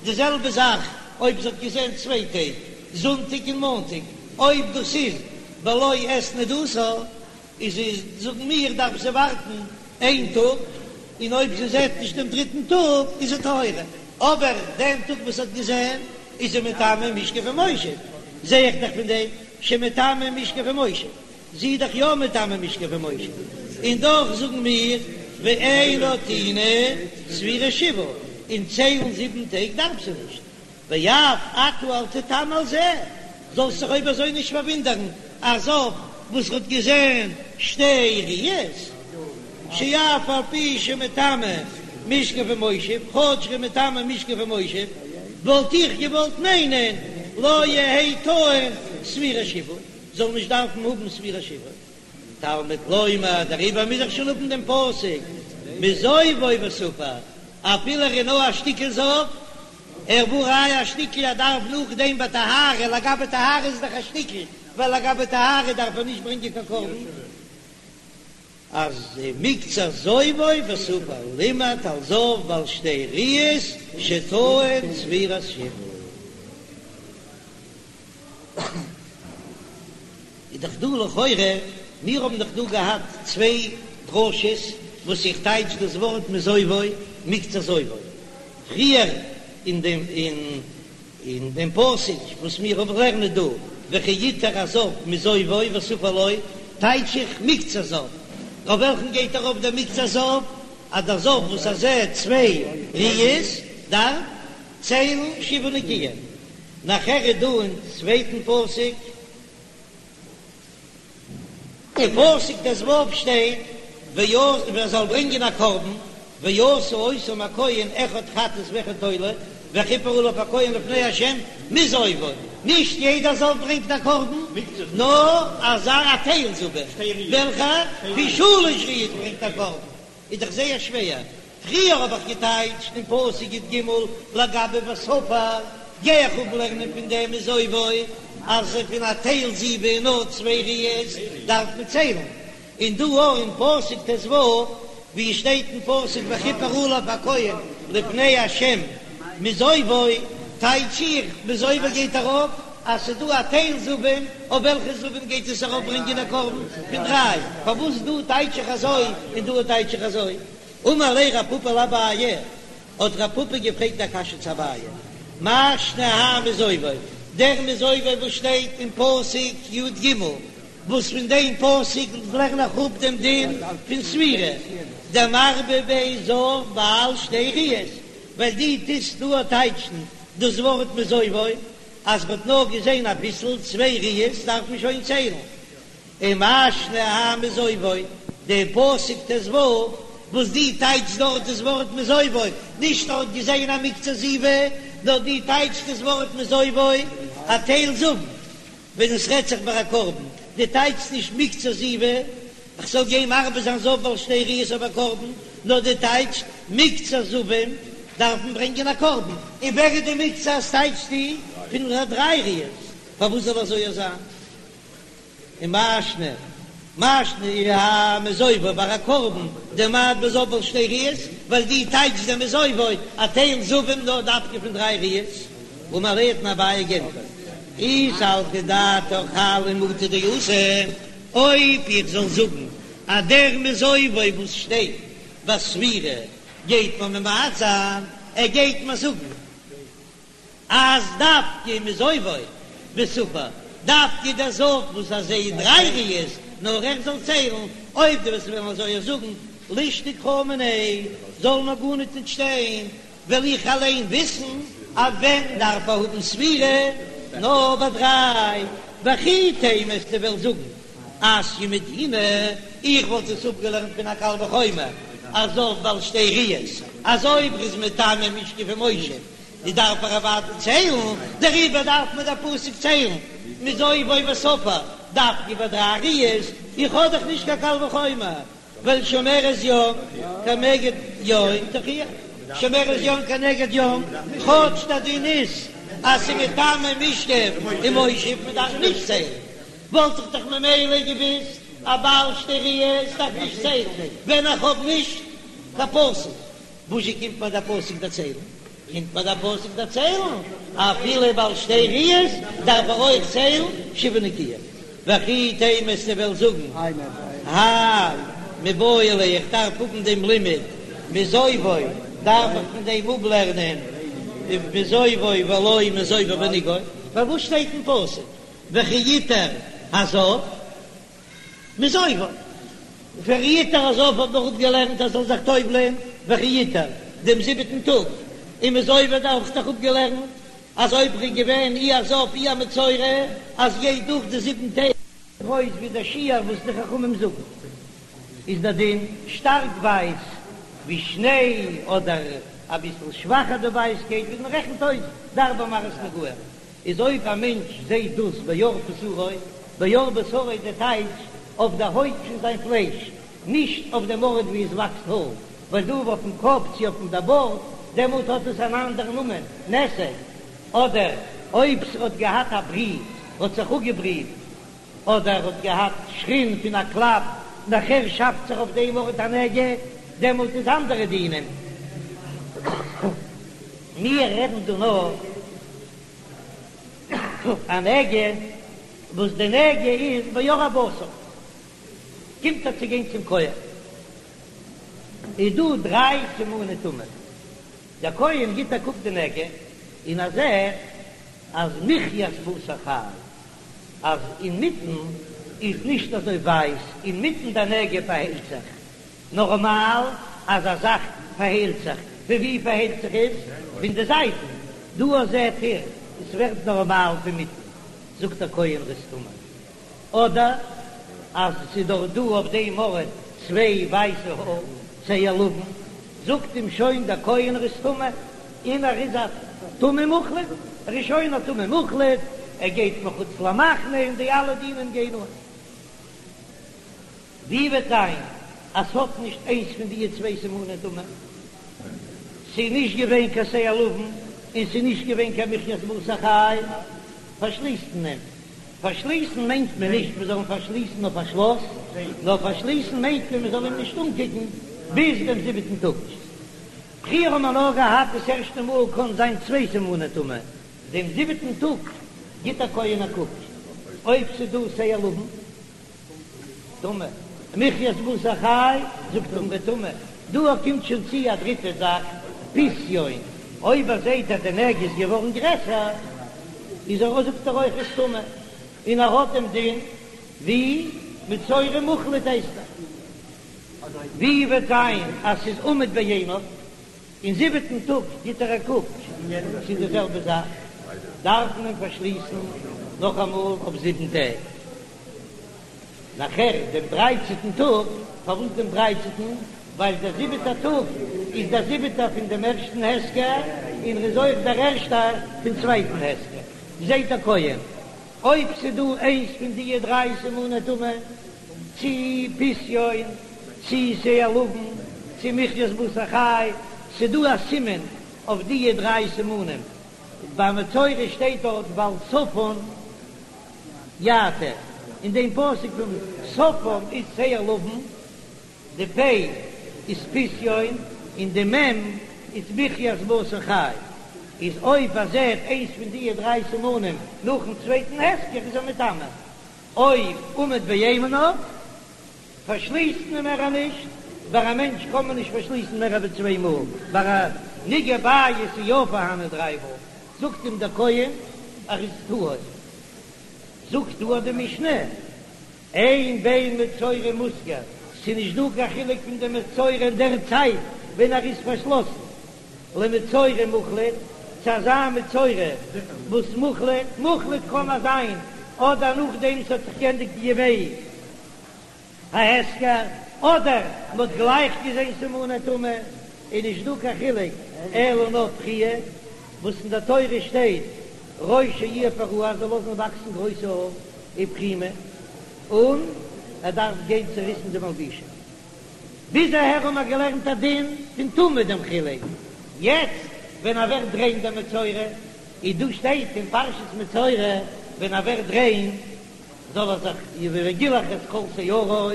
די זעלבע זאך אויב זי האט געזען צוויי טעג, זונטאג און מאנטאג, אויב דאס איז בלא עת נדתה, איז איז זאגן מיר דארף זי ווארטן איין טאג, און אויב זי זעט נישט דעם דריטן טאג איז זי טהורה, אבער דעם טאג וואס זי האט געזען איז זי מטמא משכב ומושב, זע איך דאך פון דעם שמטמא משכב ומושב. זי איז דאך יא מטמא משכב ומושב, און דאך זאגן מיר ואינה טעונה ספירת שבעה, און ציילן זיבן טעג דארף זי נישט, ואף אתה אל תתמה על זה, זאלסט זיך אויב אזוי נישט פארוואונדערן א זב וואס האט געזען שתי ראיות, שאף על פי שמטמא משכב ומושב, כאטש ער איז מטמא משכב ומושב, וואלט איך געוואלט מיינען לא יהא טעון ספירת שבעה. זאל נישט דארפן האבן ספירת שבעה. תלמוד לומר, דעריבער מוז איך שוין האבן דעם פסוק מזובו וספר, אפילו ער איז נאר א שטיקל זב, ער והא ראיה א שטיקל ער דארף נאכדעם ביי טהרה, לגבי טהרה איז דאך א שטיקל, ווייל לגבי טהרה דארף ער נישט ברענגען קיין קרבן. אז מקצת זובו וספר לימד על זב בעל שתי ראיות שטעון ספירת שבעה. איז דאך דא לכאורה, מיר האבן דאך דא געהאט צוויי דרשות וואס איך טייטש דאס ווארט מזובו מקצת זובו, פריער אין דעם אין דעם פסוק וואס מיר האבן לערנען דא וכי יטהר הזב מזובו וספר לו, טייטש איך מקצת זב, אויף וועלכן גייט ארויף דער מקצת זב? אז דער זב וואס ער זעט צוויי ראיות דארף ציילן שבעה נקיים. נאכער איז דא אין צווייטן פסוק, אין פסוק ט"ו שטייט ועשה ער זאל ברענגען א קרבן, ועשה אותם הכהן אחד חטאת ואחד עולה, וכיפר עליו הכהן לפני ה' מזובו, נישט יעדער זב ברענגט א קרבן, נאר אזא א טייל זבים, וועלכע פון שלש ראיות ברענגט א קרבן, איז דאך זייער שווער, פריער האב איך געטייטשט אין פסוק י"ג לגבי וספר. גיי איך אפלערנען פון דעם מזובו אז פון א טייל זיבה און נאר צוויי ראיות דארף מען ציילן, און דא אויך אין פסוק ט"ו ווי עס שטייט אין פסוק וכפר עליו הכהן לפני ה' מזובו, טייטש איך מזובו גייט ארויף אז ס'איז דא א טייל זבים, אויף וועלכע זבים גייט עס ארויף ברענגען א קרבן פון דריי, פארוואס דא טייטש איך אזוי און דא טייטש איך אזוי? אמר ליה רב פפא לאביי, האט רב פפא געפרעגט א קשיא צו אביי, מאי שנא האי מזובו, דער מזובו וואס שטייט אין פסוק י"ג, וואס פון דעם פסוק לערן איך אפ דעם דין פון ספירה, דמרבה ביה זב בעל שתי ראיות, ווייל דו טוסט דא טייטשן דאס ווארט מזובו אז מ'האט נאר געזען אביסל, צוויי ראיות דארף מען שוין ציילן. ומאי שנא האי מזובו, דער פסוק ט"ו וואס דו טייטשט דארט דאס ווארט מזובו, נישט ער האט געזען א מקצת זיבה, נאר דו טייטשט דאס ווארט מזובו א טייל זבים, ווען עס רעדט זיך ביי א קרבן, דו טייטשסט נישט מקצת זיבה, איך זאל גיין מרבה זיין זב בעל שתי ראיות אויף א קרבן, נאר דו טייטשט מקצת זבים דארף מען ברענגען א קרבן, און ווער איז די מקצת טייטשסטו פון דריי ראיות, פארוואס זאל אזוי זיין? ומאי שנא, מאי שנא האי מזובו ביי א קרבן דממעט ביה זב בעל שתי ראיות, ווייל דו טייטשסט דעם מזובו א טייל זבים נאר דווקא פון דריי ראיות, אמר ליה האט אים אביי געענטפערט, אי סלקא דעתך האי למעוטי דאתא, אויב איך זאל זאגן אז דער מזובו וואס שטייט ביי ספירה גייט מען ממעט זיין, ער גייט מיר זאגן אז דווקא מזובו וספר, דווקא דער זב וואס ער זעט דריי ראיות, נאר ער זאל ציילן, אויב דו וועסט וועלן אזוי זאגן, לישתוק קרא מיניה, זאל נאר גארניט ניט שטיין, וועל איך אליין וויסן אז ווען דארף ער האבן ספירה, נאר ביי דריי, וכי תימא וועסטו וועלן זאגן אתיא מדינא, איך וואלט עס אפגעלערנט פון א קל וחומר, אז זב בעל שתי ראיות, אז אויב ר'איז מטמא משכב ומושב, די דארף ער אוודאי ציילן, דעריבער דארף מיר דער פסוק ציילן מזובו וספר דווקא ביי דריי ראיות, איך האב דאך נישט קיין קל וחומר, ווייל שומרת יום כנגד יום תוכיח, שומרת יום כנגד יום, כאטש דער דין איז אז ס'איז מטמא משכב ומושב, מען דארף נישט ציילן, וואלט איך דאך ממילא געוויסט אז בעל שתי ראיות דארף נישט ציילן ווען איך האב נישט קיין פסוק. וואזשע קומט מיר דער פסוק דערציילן? קומט מיר דער פסוק דערציילן, אפילו בעל שתי ראיות דארף ער אויך ציילן שבעה נקיים. וכי תימא וועסטו וועלן זאגן, האי מיבעי ליה, איך דארף האבן דעם לימוד מזובו, דארף איך פון דעם אפלערנען מזובו ולא מזובו ונגעו, פארוואס שטייט אין פסוק וכי יטהר הזב? מזובו. וכי יטהר הזב האט מען אפגעלערנט אז זאל זיך טובל'ען וכי יטהר דעם זיבעטן טאג, און מזובו דארף איך דאך אפגעלערנט אז אויב ר'איז געווען אי א זב אי א מצורע אז גייט דורך די זיבן טעג. גרויס ווי דער שיעור וואס די חכמים זאגן איז דער דין שטארק ווייס ווי שניי אדער אביסל שוואכער די ווייסקייט ווי מען רעכנט אויס די ארבע מראות נגעים. איז אויב א מענטש זעהט דאס בעור בשרו, בעור בשרו איז די טייטש אויף די הויט פון זיין פלייש, נישט אויף דעם ארט ווי עס וואקסט האר, ווייל דא אויפן קאפ צו אויפן די בארד, דעמאלט האט עס אן אנדערן נאמען, נתק, אדער אויב ס'האט געהאט א ברי, האט זיך אפגעבריט, אדער האט געהאט שחין פון א קלאפ, נאכער שאפט זיך אויף דעם ארט א נגע, דעמאלט איז אנדערע דינים. מיר רעדן דא נאר א נגע וואס די נגע איז בעור הבשר, קומט ער צו גיין צום כהן, איז דא דריי סימני טומאה, דער כהן גיט א קוק די נגע און ער זעט אז מחיית בשר חי, אז אינמיטן איז נישט אזוי ווייס, אינמיטן די נגע פארהיילט זיך, נארמאל אז א זאך פארהיילט זיך, פון ווי פארהיילט זיך עס? פון די זייטן, דא זעט איר עס ווערט נארמאל פון מיטן, זאגט דער כהן ר'איז טמא, אדער אז עס איז דאך דא אויף דעם ארט צוויי ווייסע האר, שער לבן, זאגט אים שוין דער כהן ר'איז טמא, און ער איז א טמא מוחלט, ער איז שוין א טמא מוחלט, ער גייט מחוץ למחנה און די אלע דינים גייען אן. ווי וועט זיין אז ס'האט נישט איינס פון דיע צוויי סימני טומאה? ס'איז נישט געווען קיין שער לבן. און ס'איז נישט געווען קיין מחית בשר חי, פארשליסט מען אים. פארשליסן מיינט מען נישט מען זאל אים פארשליסן אויף א שלאס, נאר פארשליסן מיינט מען מען זאל אים נישט אנקוקן ביז דעם זיבעטן טאג. פריער האט מען נאר געהאט דאס ערשטע מאל קען זיין צוויי סימני טומאה, דעם זיבעטן טאג גיט דער כהן א קוק אויב ס'איז דא שער לבן טמא, מחית בשר חי זאגט ער אים טמא, דא קומט שוין צו א דריטע זאך פסיון, אויב ער זעט אז די נגע איז געווארן גרעסער איז ער זאגט ער אויך איז טמא, און ער האט דעם דין ווי מצורע מוחלט הייסט ער. ווי וועט זיין אז ס'איז עמוד בעיניו, אין זיבעטן טאג גיט ער א קוק, ס'איז די זעלבע זאך, דארף מען פארשליסן נאכאמאל אויף זיבן טעג. נאכער דעם דרייצעטן טאג, פארוואס דעם דרייצעטן? ווייל דער זיבעטער טאג איז דער זיבעטער פון דעם ערשטן הסגר, און ר'איז אויך דער ערשטער פון צווייטן הסגר, זעט דער כהן אויב ס'דא איינס פון דיע דריי סימני טומאה, צי פסיון, צי שער לבן, צי מחית בשר חי, ס'דא א סימן אויף דיע דריי סימנים, ביי מצורע שטייט דארט ועל שפם יעטה, אין דעם פסוק פון שפם איז שער לבן, די פ' איז פסיון און די מ' איז מחית בשר חי, איז אויב ער זעט איינס פון דיע דריי סימנים נאכן צווייטן הסגר איז ער מטמא, אויב עמוד בעיניו פארשליסט מען מער נישט, ביי א מענטש קען מען נישט פארשליסן מער ווי צוויי מאל, ביי א נגעי בית איז יא פארהאנען דריי מאל, זאגט אים דער כהן ער איז טהור, זאגט דא די משנה. אין בין מצורע מוסגר, ס'איז נישט דא קיין חילוק פון די מצורע אין דער צייט ווען ער איז פארשלאסן, למצורע מוחלט, צו אזא מצורע וואס מוחלט, מוחלט קען ער זיין אדער נאכדעם ס'האט זיך גענדיגט די ימי ההסגר, אדער מ'האט גלייך געזען סימני טומאה, איז נישט דא קיין חילוק אלא נאר פריעה, וואס אין דער תורה שטייט ראשו יהיה פרוע זאל לאזן וואקסן גרויסע האר ופרימה, און ער דארף גיין צוריסן די מלבושים. ביז אהער האבן מיר געלערנט א דין פון טומאה דעם חילוק, יעצט ווען ער ווערט ריין דער מצורע, איז דא שטייט אין פרשת מצורע ווען ער ווערט ריין זאל ער זיך וגילח את כל שערו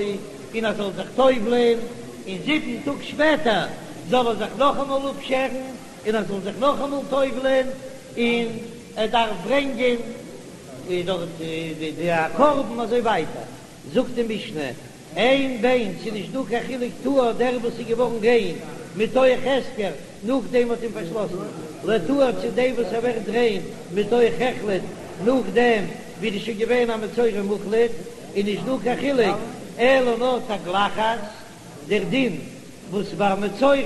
און ער זאל זיך טובל'ען, און זיבן טאג שפעטער זאל ער זיך נאכאמאל אפשערן און ער זאל זיך נאכאמאל טובל'ען, און ער דארף ברענגען דארט די א קרבן אזוי ווייטער, זאגט די משנה, אין בין, ס'איז נישט דא קיין חילוק טהור דער וואס איז געווארן ריין מתוך הסגר נאכדעם מ'האט אים פארשלאסן, לטהור צו דעם וואס ער ווערט ריין מתוך החלט נאכדעם ווי ער איז שוין געווען א מצורע מוחלט, איז נישט דא קיין חילוק אלא נאר תגלחת, דער דין וואס ביי מצורע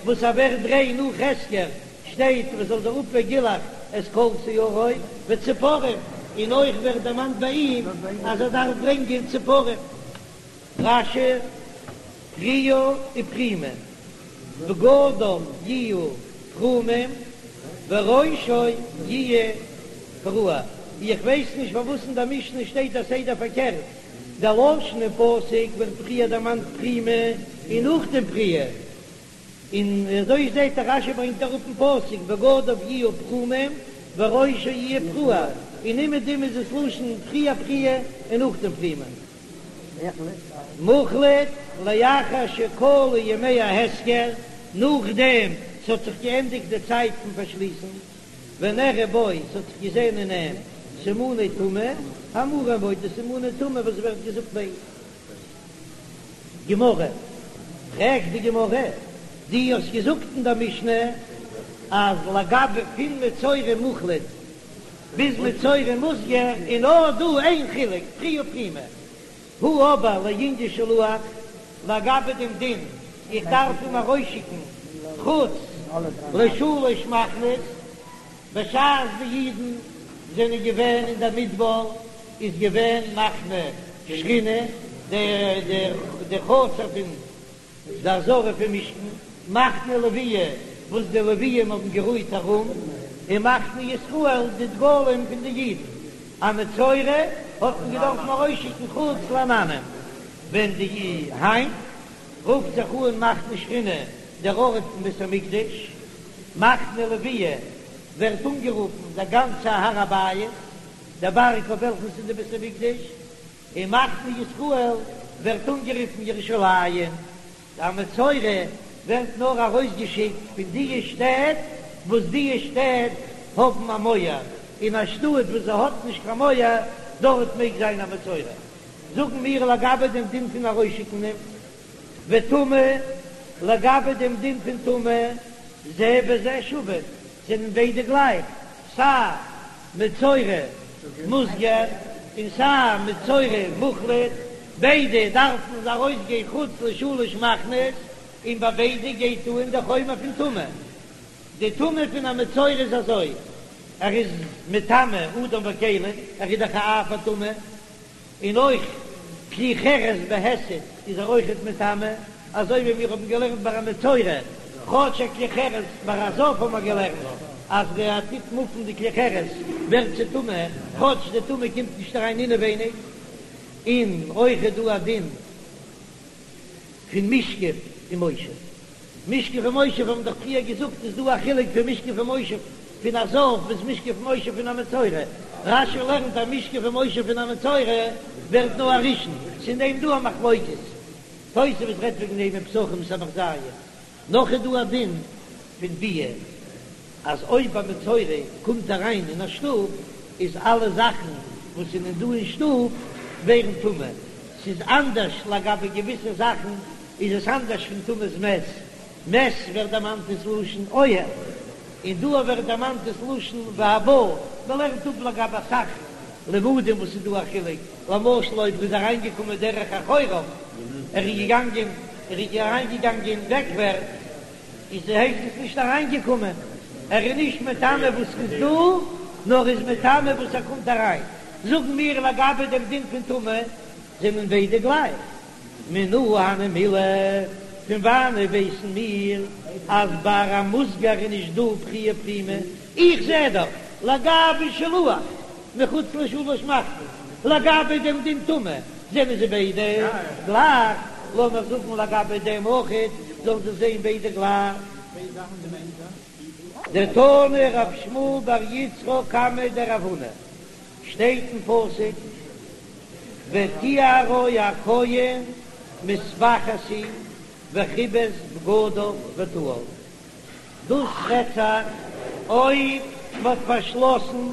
וואס ער ווערט ריין נאך הסגר שטייט מען זאל זיך אפ וגילח את כל שערו וציפורים, און אויך ווערט דערמאנט ביי אים אז ער דארף ברענגען ציפורים. רש"י, פריעה ופרימה, בגדיו יהיו פרומים וראשו יהיה פרוע, איך ווייס נישט פארוואס אין דער משנה שטייט א סדר פארקערט, דער לשון אין פסוק ווערט פריער דערמאנט פרימה און נאכדעם פריעה, און אזוי זעט ער רש"י ברענגט אראפ אין פסוק בגדיו יהיו פרומים וראשו יהיה פרוע, און אומעדום איז עס לשון פריער פריעה און נאכדעם פרימה. מוחלט לאחר שכלו ימי ההסגר, נאכדעם ס'האט זיך געענדיגט די צייט פון פארשליסן, ונראה בו, ס'האט זיך געזען אין אים סימני טומאה, האמורים בו, די סימני טומאה וואס ווערט געזאגט ביי אים. גמרא, פרעגט די גמרא, דו האסט געזאגט אין דער משנה אז לגבי פון מצורע מוחלט ביז מצורע מוסגר איז נאר דא איין חילוק, פריעה ופרימה, הא אבער לענין שילוח, לגבי דעם דין איך דארף אים ארויסשיקן חוץ לשלוש מחנות, בשעת די אידן זענען געווען אין דער מדבר איז געווען מחנה שכינה, די חצר פון די עזרה פון משכן, מחנה לוויה וואס די לוויים האבן גערוהט ארום, און מחנה ישראל די דגלים פון די אידן. א מצורע האט מען געדארפן ארויסשיקן חוץ לעננים, ווען די היינט רופט זיך אן מחנה שכינה דער ארט פון בית המקדש, מחנה לוויה. ווערט אנגערופן דער גאנצער הר הבית, דער בארג אויף וועלכן ס'איז די בית המקדש, און מחנה ישראל ווערט אנגערופן ירושלים. א מצורע ווערט נאר ארויסגעשיקט פון דיע שטעט וואס דיע שטעט האבן א מויער, אין א שטאט וואס זי האט נישט קיין מויער דארט מעג זיין א מצורע. זאגן מיר לגבי דעם דין פון ארויסשיקן אים וטומאה, לגבי דעם דין פון טומאה, זה בזה שווין, זענען ביידע גלייך, סיי מצורע מוסגר און סיי מצורע מוחלט, ביידע דארפן ארויסגיין חוץ לשלש מחנות, און ביי ביידע גייט אן די חומר פון טומאה. די טומאה פון א מצורע איז אזוי, ער איז מטמא אדם וכלים, ער איז דאך א אב הטומאה, און אויך כלי חרס בהיסט איז ער אויכעט מטמא, אזוי ווי מיר האבן געלערנט ביי א מצורע, כאטש א כלי חרס ביי א זב האבן מיר געלערנט אז ווען ער טוט מופן די כלי חרס ווערט זי טמא, כאטש די טומאה קומט נישט אריין אינעווייניג, און אויך איז דא א דין פון משכב ומושב. משכב ומושב האבן דאך פריער געזאגט איז דא א חילוק פון משכב ומושב פון א זב ביז משכב ומושב פון א מצורע, רש"י לערנט אז משכב ומושב פון א מצורע ווערט נאר א ראשון, ס'איז אין דעם דא א מחלוקת, תוספות רעדט וועגן דעם אין פסחים סמך ז. נאך איז דא א דין פון ביאה אז אויב א מצורע קומט אריין אין א שטוב איז אלע זאכן וואס זענען דא אין שטוב ווערן טמא, ס'איז אנדערש לגבי געוויסע זאכן איז עס אנדערש פון טומאת מת, מת ווערט דערמאנט דאס לשון אוהל, און דא ווערט דערמאנט דאס לשון והבא, מען לערנט אפ לגבי אסאך לימודים וואס איז דא א חילוק, למשל אויב ער איז אריינגעקומען דרך אחוריו, ער איז געגאנגען, ער איז אריינגעגאנגען בעקווערטס, איז הייסט עס נישט אריינגעקומען, ער איז נישט מטמא וואס איז דא, נאר איז מטמא וואס ער קומט אריין. זאגן מיר לגבי דעם דין פון טומאה, זענען ביידע גלייך. מנא הני מילי, פון וואנעט ווייסן מיר אז ביי א מוסגר איז נישט דא פריעה פרימה? איך זע דאך לגבי שילוח מחוץ לשלש מחנות, לגבי דעם דין טומאה זענען זיי ביידע גלייך, לאמיר זאגן לגבי דעם אויכעט זאלן זיי זיין ביידע גלייך. דתני רב שמואל בר יצחק קמיה דרב הונא, שטייט אין פסוק וטהרו הכהן מספחת היא וכבס בגדיו וטהר, דאס רעדט זיך אויב מ'האט פארשלאסן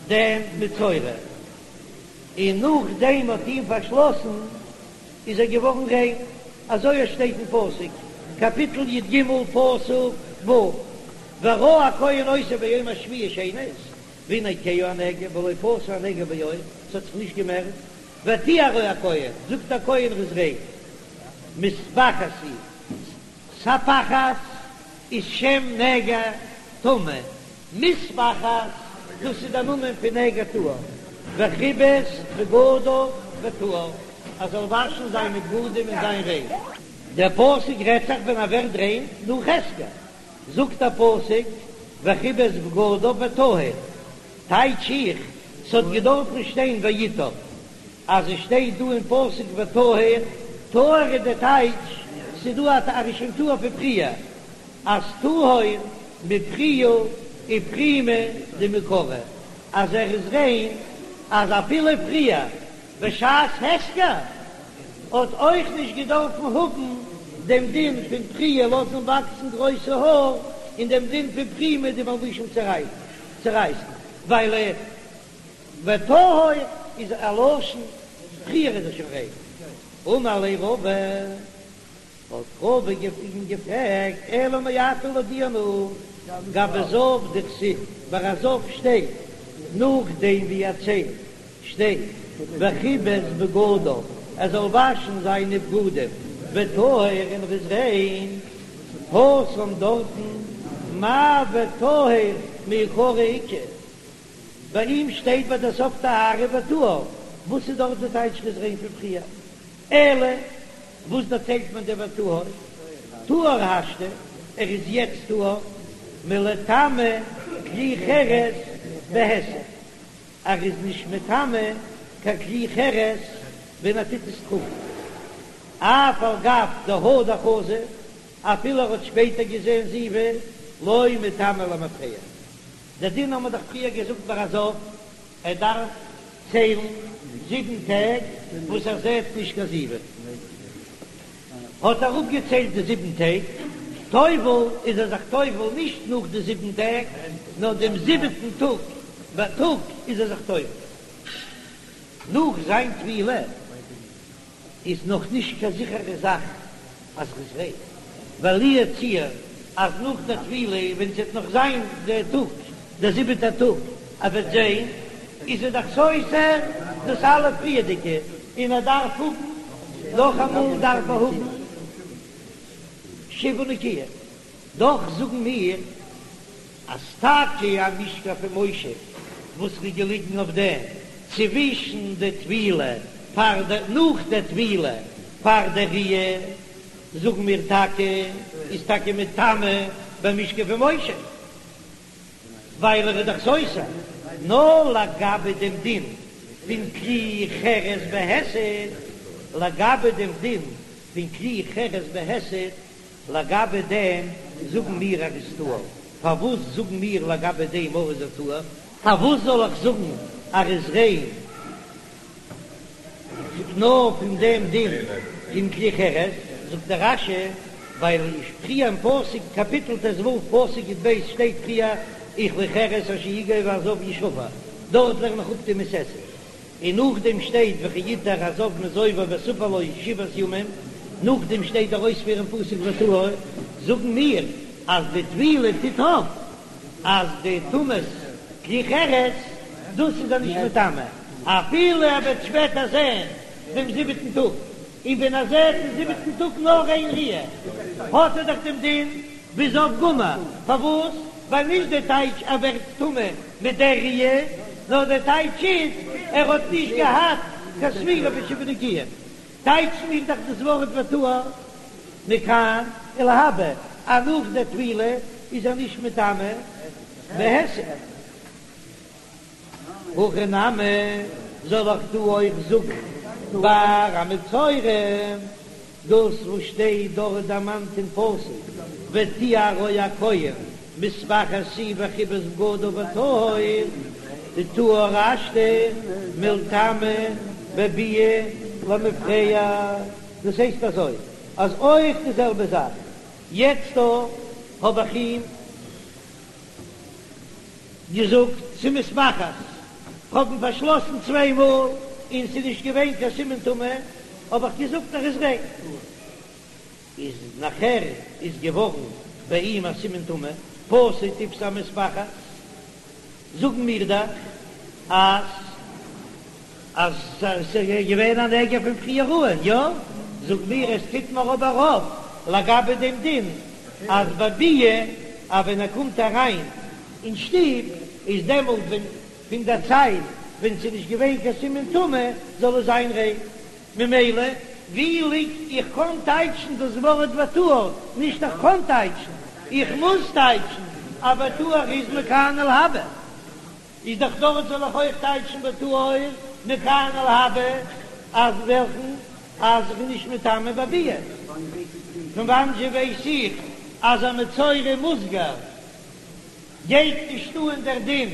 דעם מצורע, און נאכדעם מ'האט אים פארשלאסן איז ער געווארן ריין, אזוי עס שטייט אין פסוק, קאפיטל י"ג פסוק ו', וראה הכהן אותו ביום השביעי שנית, והנה כהה הנגע ולא פשה הנגע בעור, ס'האט זיך נישט געמערט, וטהרו הכהן, זאגט דער כהן ער איז ריין, מספחת היא, ספחת איז שם נגע טמא, מספחת דאס איז דער נאמען פון נגע טהור, וכבס בגדיו וטהר, ער זאל וואשן זיינע בגדים און זיין ריין. דער פסוק רעדט זיך ווען ער ווערט ריין נאך הסגר, זאגט דער פסוק וכבס בגדיו וטהר, טייטש איך, ס'האט געדארפן שטיין ויטהר, אז עס שטייט דא אין פסוק וטהר, טהור איז די טייטש, ס'איז דא א ער איז שוין טהור פון פריער, אז טהור מפריעה ופרימה דמעיקרא, אז ער איז ריין אז אפילו פריער בשעת הסגר האט אויך נישט געדארפן האבן דעם דין פון פריעה לאזן וואקסן גרויסע האר און דעם דין פון פרימה די מלבושים צורייסן ווייל וטהור איז א לשון פריער איז ער שוין ריין. אמר ליה רבא. האט רבא אים געפרעגט, אלא מעתה לויט דיר גבי זב דכתיב, ביי א זב שטייט נאכדעם ווי ער ציילט שטייט וכבס בגדיו, ער זאל וואשן זיינע בגדים, וטהר און ער איז ריין, התם דארטן מאי וטהר מעיקרא איכא, ביי אים שטייט ביי די סוף טהרה וטהר, וואס איז דארט די טייטש ר'איז ריין פון פריער? אלא וואס דערציילט מען דער וטהר? טהור השתא, ער איז יעצט טהור, מלטמא כלי חרס בהיסט, ער איז נישט מטמא קיין כלי חרס ווען ער טוט עס טראגן, אף על גב דהדר חזא, אפילו ער האט שפעטער געזען זיבה, לא מטמא למפרע. דער דין האבן מיר דאך פריער געזאגט ביי א זב, ער דארף ציילן זיבן טעג וואס ער זעט נישט קיין זיבה. האט ער אפגעציילט די זיבן טעג, טובל איז ער זיך טובל נישט נאך די זיבן טעג, נאר דעם זיבעטן טאג בייטאג איז ער זיך טובל. נאך זיין טבילה איז נאך נישט קיין זיכערע זאך אז ר'איז ריין, ווייל לו יצוייר אז נאך דער טבילה ווען ס'וועט נאך זיין דער טאג, דער זיבעטער טאג, ער וועט זען, איז ער דאך סותר דאס אלע פריערדיגע, און ער דארף האבן, נאכאמאל דארף ער האבן שבעה נקיים. דאך זאגן מיר אז טאקע א משכב ומושב וואס איז געליגן אויף דעם צווישן די טבילה פאר די נאך די טבילה פאר די ראיה, זאגן מיר טאקע איז טאקע מטמא במשכב ומושב ווייל ער איז דאך סותר, נאר לגבי דעם דין פון כלי חרס בהיסט, לגבי דעם דין פון כלי חרס בהיסט לגבי דעם זאגן מיר ער איז טהור, פארוואס זאגן מיר לגבי דעם אויך איז ער טהור? פארוואס זאל איך זאגן ער איז ריין נאר פון דעם דין פון כלי חרס? זאגט דער רש"י, ווייל פריער אין פסוק קאפיטל ט"ו פסוק י"ב שטייט פריער וכלי חרס אשר יגע והזב ישבר, דארט לערן איך אפ די מצות עשה. און נאכדעם שטייט וכי יטהר הזב מזובו וספר לו שבעת ימים, נאכדעם שטייט דער אויספיר אין פסוק וטהר, זאגן מיר אז די טבילה טוט אויף אז די טומאת כלי חרס, דאס איז ער נישט מטמא אפילו ער וועט שפעטער זען דעם זיבעטן טאג, און ווען ער זעט דעם זיבעטן טאג נאר איין ראיה האט ער דאך דעם דין ווי זב גמור, פארוואס? ווייל נישט די טייטש ער ווערט טמא מיט דער ראיה, נאר די טייטש איז ער האט נישט געהאט קיין ספירה פון שבעה נקיים. טייטשן מיר דאך דאס ווארט וטהר מכאן ולהבא אז נאך די טבילה איז ער נישט מטמא בהיסט. הכא נמי, זאל איך דא אויך זאגן ביי א מצורע דאס וואס שטייט דארט דערמאנט אין פסוק וטהרו הכהן מספחת היא וכבס בגדיו וטהור, דטהור השתא מלטמא בביאה למפרע, דאס הייסט אזוי אז אויך די זעלבע זאך יעצט דא האב איך אים געזאגט ס'איז מספחת, כ'האב אים פארשלאסן צוויי מאל און ס'איז נישט געווען קיין סימן טומאה, האב איך געזאגט ער איז ריין. איז נאכער איז געווארן ביי אים א סימן טומאה, פשט תפשי המספחת, זאגן מיר דאך אז אז ס'איז געווען א נגע פון פריער אן, יא? זאג מיר עס טוט מיר אבער אויף לגבי דעם דין אז בביאה אז ווען ער קומט אריין אין שטוב איז דעמאלט ווען פון דער צייט ווען ס'איז נישט געווען קיין סימן טומאה זאל עס זיין ריין, ממילא ווי ליגט איך קען טייטשן דאס ווארט וטהר, נישט איך קען טייטשן, איך מוז טייטשן אז וטהר איז מכאן ולהבא. איז דאך דארט זאל איך אויך טייטשן וטהור מכאן ולהבא אז וועלכן אז איך בין נישט מטמא בביאה. פון וואנען זשע ווייס איך אז א מצורע מוסגר גייט נישט אן דער דין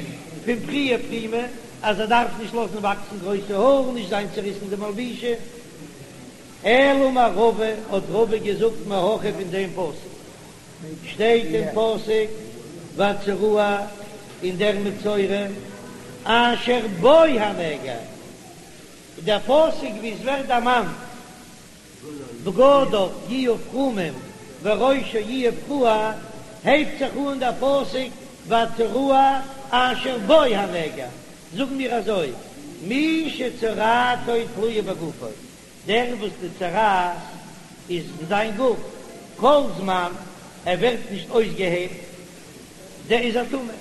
פון פריעה פרימה אז ער דארף נישט לאזן וואקסן גרויסע האר און נישט זיין צעריסן די מלבושים. אלא אמר רבא האט רבא געזאגט מהכא פון דעם פסוק. שטייט אין פסוק והצרוע און דער מצורע אשר בו הנגע, דער פסוק ווי עס ווערט דערמאנט בגדיו יהיו פרומים וראשו יהיה פרוע, הייבט זיך אן דער פסוק והצרוע אשר בו הנגע, זאגן מיר אזוי מי שצרעתו תלויה בגופו, דער וואס די צרעת איז אין זיין גוף, כל זמן ער ווערט נישט אויסגעהיילט, דער איז א טמא,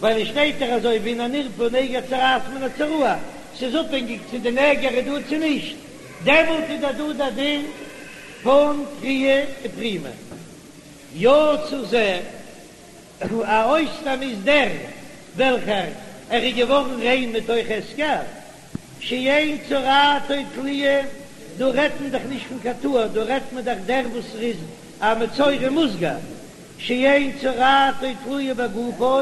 ווייל עס שטייט דאך אזוי והנה נרפא נגע צרעת מן הצרוע, ס'איז אפהענגיק צו די נגע איז דא צו נישט, דעמאלט איז דאך דא דער דין פון פריעה ופרימה. יצא זה. א אויסנאם איז דער וועלכער ער איז געווארן ריין מתוך הסגר, שאין צרעתו תלויה, דא רעדט מען דאך נישט פון קיין טהור, דא רעדט מען דאך דער וואס ער איז א מצורע מוסגר, שאין צרעתו תלויה בגופו.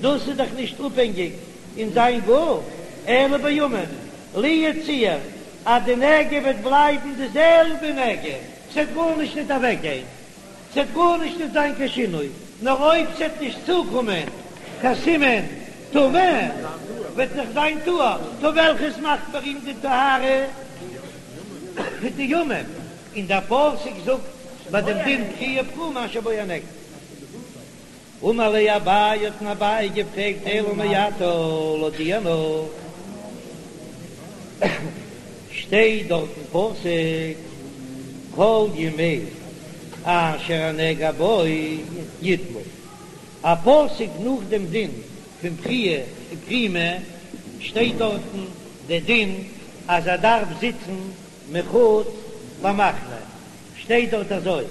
דאס איז דאך נישט אפהענגיק אין זיין גוף, אלא בימים, לו יצוייר אז די נגע וועט בלייבן די זעלבע נגע, ס'וועט גארנישט ניט אוועקגיין, ס'וועט גארנישט ניט זיין קיין שינוי, נאר אויב ס'וועט נישט צוקומען קיין סימן טומאה, וועט זיך זיין טהור, טא וועלכעס מאכט ביי אים די טהרה? די ימים, און דער פסוק זאגט ביי דעם דין פריעה ופרימה אשר בו הנגע. אמר ליה אביי האט אים אביי געפרעגט אלא מעתה לויט דיר נאך שטייט דארט אין פסוק כל ימי אשר הנגע בו יטמא, א פסוק נאך דעם דין פון פריעה ופרימה שטייט דארטן די דין אז ער דארף זיצן מחוץ למחנה, שטייט דארט אזוי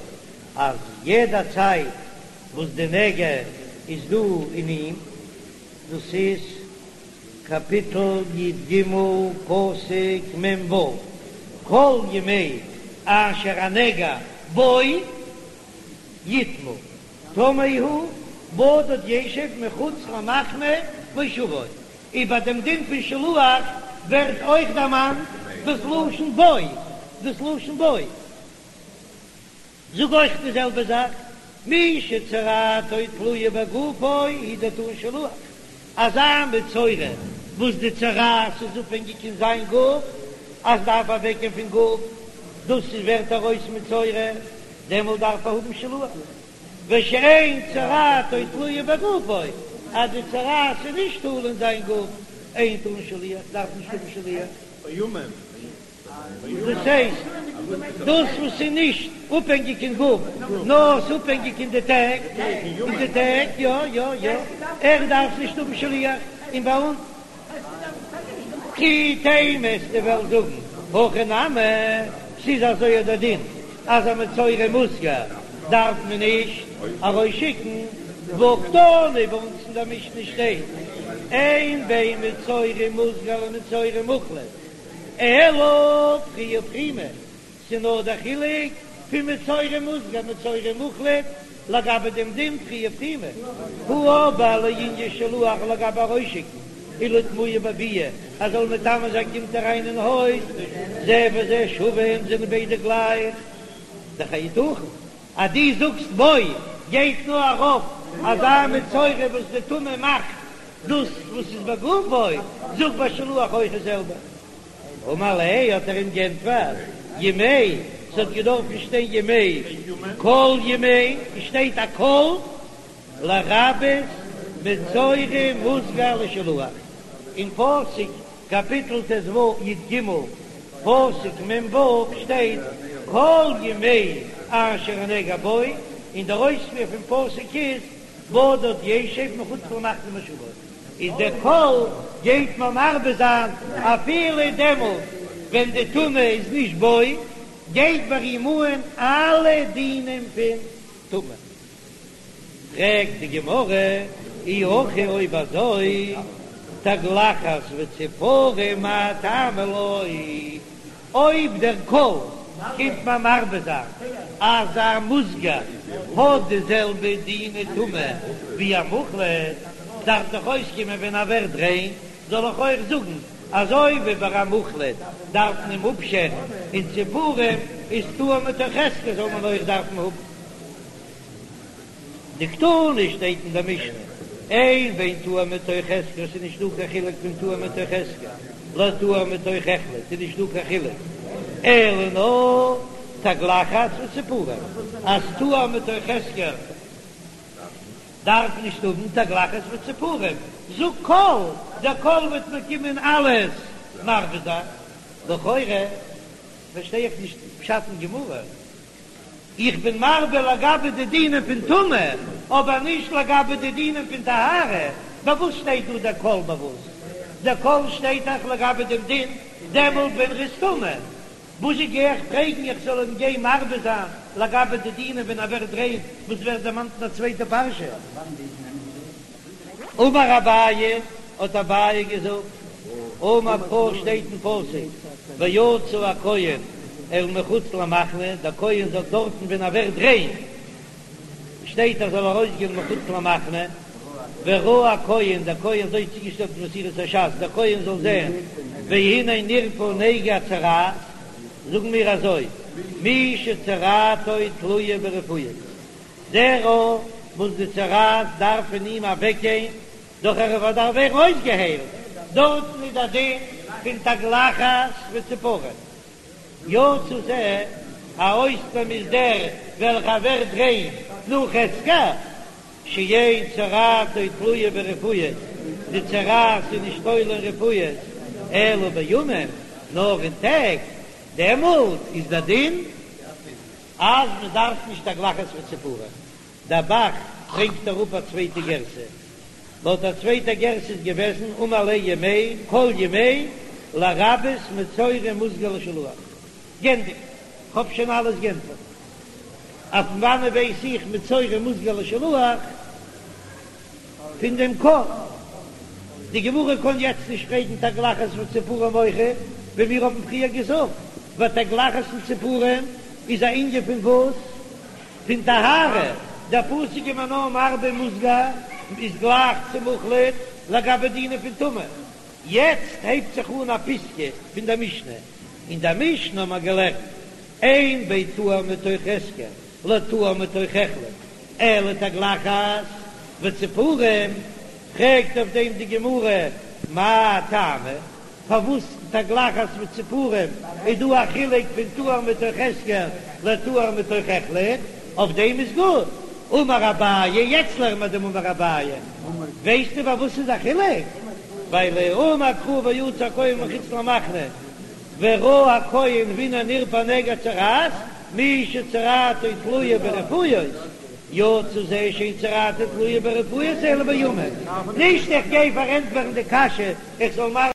אז יעדע צייט וואס די נגע איז דא אין אים, דאס איז קאפיטל י ג פסוק מ ו, כל ימי אשר הנגע בו יטמא, טמא הוא בדד ישב מחוץ למחנה מושבו, איבער דעם דין פון שלוח ווערט אויך דערמאנט דאס לשון בו, דאס לשון בו. זאג אויך די זעלבע זאך, מי שצרעתו תלויה בגופו הוא דטעון שילוח, אזא מצורע וואס די צרעת איז אפהענגיק אין זיין גוף, אז דארף אוועקגיין פון גוף, דאס איז ווערט ער אויס מצורע, דעמאלט דארף ער האבן שילוח, ושאין צרעתו תלויה בגופו, אז די צרעת איז נישט תלוי אין זיין גוף, אין טעון שליח, דארף נישט האבן שליח. דאס הייסט, דאס וואס איז נישט אפהענגיק אין גוף, נאר ס'איז אפהענגיק אין די טעג, אין די טעג, יא יא יא, ער דארף נישט האבן שליח, און ביי אונז, כי תימא וועסטו וועלן זאגן, הכי נמי, ס'איז אזוי דער דין, אז א מצורע מוסגר דארף מען נישט ארויסשיקן, והא קתני ביי אונז אין דער משנה שטייט, אין בין מצורע מוסגר למצורע מוחלט. אלא פריעה ופרימה, ס'נאר דער חילוק פון מצורע מוסגר מצורע מוחלט לגבי דעם דין פריעה ופרימה, הא אבער לענין שילוח לגבי ארויסשיקן ולטמויי בביאה אז זאל מטמא זיין קומט אריין אין הויז, זה וזה שווים זענען ביידע גלייך, דאך היתכן אז דו זאגסט בו גייט נאר ארויף אזא מצורע וואס די טומאה מאכט דאס וואס איז בגופו, זאג ביי שילוח אויך די זעלבע. אמר ליה האט ער אים גענטפערט, ימי, ס'האט געדארפן שטיין ימי, כל ימי, עס שטייט א כל, לרבות מצורע מוסגר לשילוח, אין פסוק קאפיטל ט ו י ג פסוק מ ו שטייט כל ימי אשר הנגע בו, און דער אויספיר פון פסוק איז בדד ישב מחוץ למחנה מושבו, איז דער כל גייט מען מרבה זיין אפילו דעמאלט ווען די טומאה איז נישט בו, גייט ביי אים אן אלע דינים פון טומאה. פרעגט די גמרא, אי הכי אויב אזוי, תגלחת וציפורים מאי טעמא לא, אויב דער כל קומט מען מרבה זיין אז א מוסגר האט די זעלבע דיני טומאה ווי א מוחלט, דארף דאך אויסקומען ווען ער ווערט ריין זאל איך אויך זאגן אזוי ווי ביי א מוחלט דארף מען אים אפשערן און ציפורים איז טהור מתוך הסגר זאל מען אויך דארפן האבן. דקתני שטייט אין דער משנה, אין בין טהור מתוך הסגר, ס'איז נישט דא קיין חילוק פון טהור מתוך הסגר לטהור מתוך החלט, ס'איז נישט דא קיין חילוק, אלא נאר תגלחת וציפורים, אז טהור מתוך הסגר דארף נישט האבן תגלחת וציפורים, זאג כל, דער כל וועט מיר קומען אלעס מרבה זיין, לכאורה פארשטיי איך נישט פשט אין גמרא. איך בין מרבה לגבי די דינים פון טומאה, אבער נישט לגבי די דינים פון טהרה. ביי וואס שטייט דא דער כל ביי וואס? דער כל שטייט דאך לגבי דעם דין דעמאלט ווען ר'איז טמא. וואזשע גיי איך פרעגן איך זאל אים גיין מרבה זיין לגבי די דינים ווען ער ווערט ריין וואס ווערט דערמאנט אין א צווייטע פרשה? אמר אביי, האט אביי געזאגט, אמר קרא שטייט אין פסוק, ויצא הכהן אל מחוץ למחנה, דער כהן זאל דארטן ווען ער ווערט ריין, שטייט ער זאל ארויסגיין מחוץ למחנה, וראה הכהן, דער כהן אזוי צוגעשטעלט אין מסורת הש"ס, דער כהן זאל זען, והנה נרפא נגע הצרעת, זאגן מיר אזוי, מי שצרעתו תלויה ברפואות, דער וואס די צרעת דארף פון אים אוועקגיין, דורך א רפואה דארף ווערן אויסגעהיילט, דארטן איז דער דין פון תגלחת וציפורים. יצא זה, א אויסנאם איז דער וועלכער ווערט ריין נאך הסגר, שאין צרעתו תלויה ברפואות, די צרעת איז נישט תלוי אין רפואות, אלא בימים, נאר אין טעג, דעמאלט איז דער דין אז מען דארף נישט תגלחת וציפורים. דער ב"ח ברענגט אראפ א צווייטע גירסא, לויט א צווייטע גירסא איז געוועזן אמר ליה ימי כל ימי לרבות מצורע מוסגר לשילוח. גענדיגט, כ'האב שוין אלעס גענטפערט. אויף וואנען ווייס איך מצורע מוסגר לשילוח? פון דעם כל. די גמרא קען יעצט נישט פרעגן תגלחת וציפורים אויכעט, ווי מיר האבן פריער געזאגט, ווייל תגלחת און ציפורים איז א ענין פון וואס? פון טהרה, דער פסוק איז מיר נאר מרבה מוסגר איז גלייך צו מוחלט לגבי דינים פון טומאה. יעצט הייבט זיך אן א פיסקא פון דער משנה, אין דער משנה האט מען געלערנט אין בין טהור מתוך הסגר לטהור מתוך החלט אלא תגלחת וציפורים, פרעגט אויף דעם די גמרא מאי טעמא, פארוואס תגלחת וציפורים איז דא א חילוק פון טהור מתוך הסגר לטהור מתוך החלט, אויף דעם איז גוט, אמר אביי, יעצט לערן מיר דעם אמר אביי, ווייסטו פארוואס איז א חילוק? ווייל אמר קרא ויצא הכהן מחוץ למחנה וראה הכהן והנה נרפא נגע צרעת, מי שצרעתו תלויה ברפואות, יצא זה שאין צרעתו תלויה ברפואות אלא בימים, נישט איך גיי פארענטפערן די קשיא איך זאל.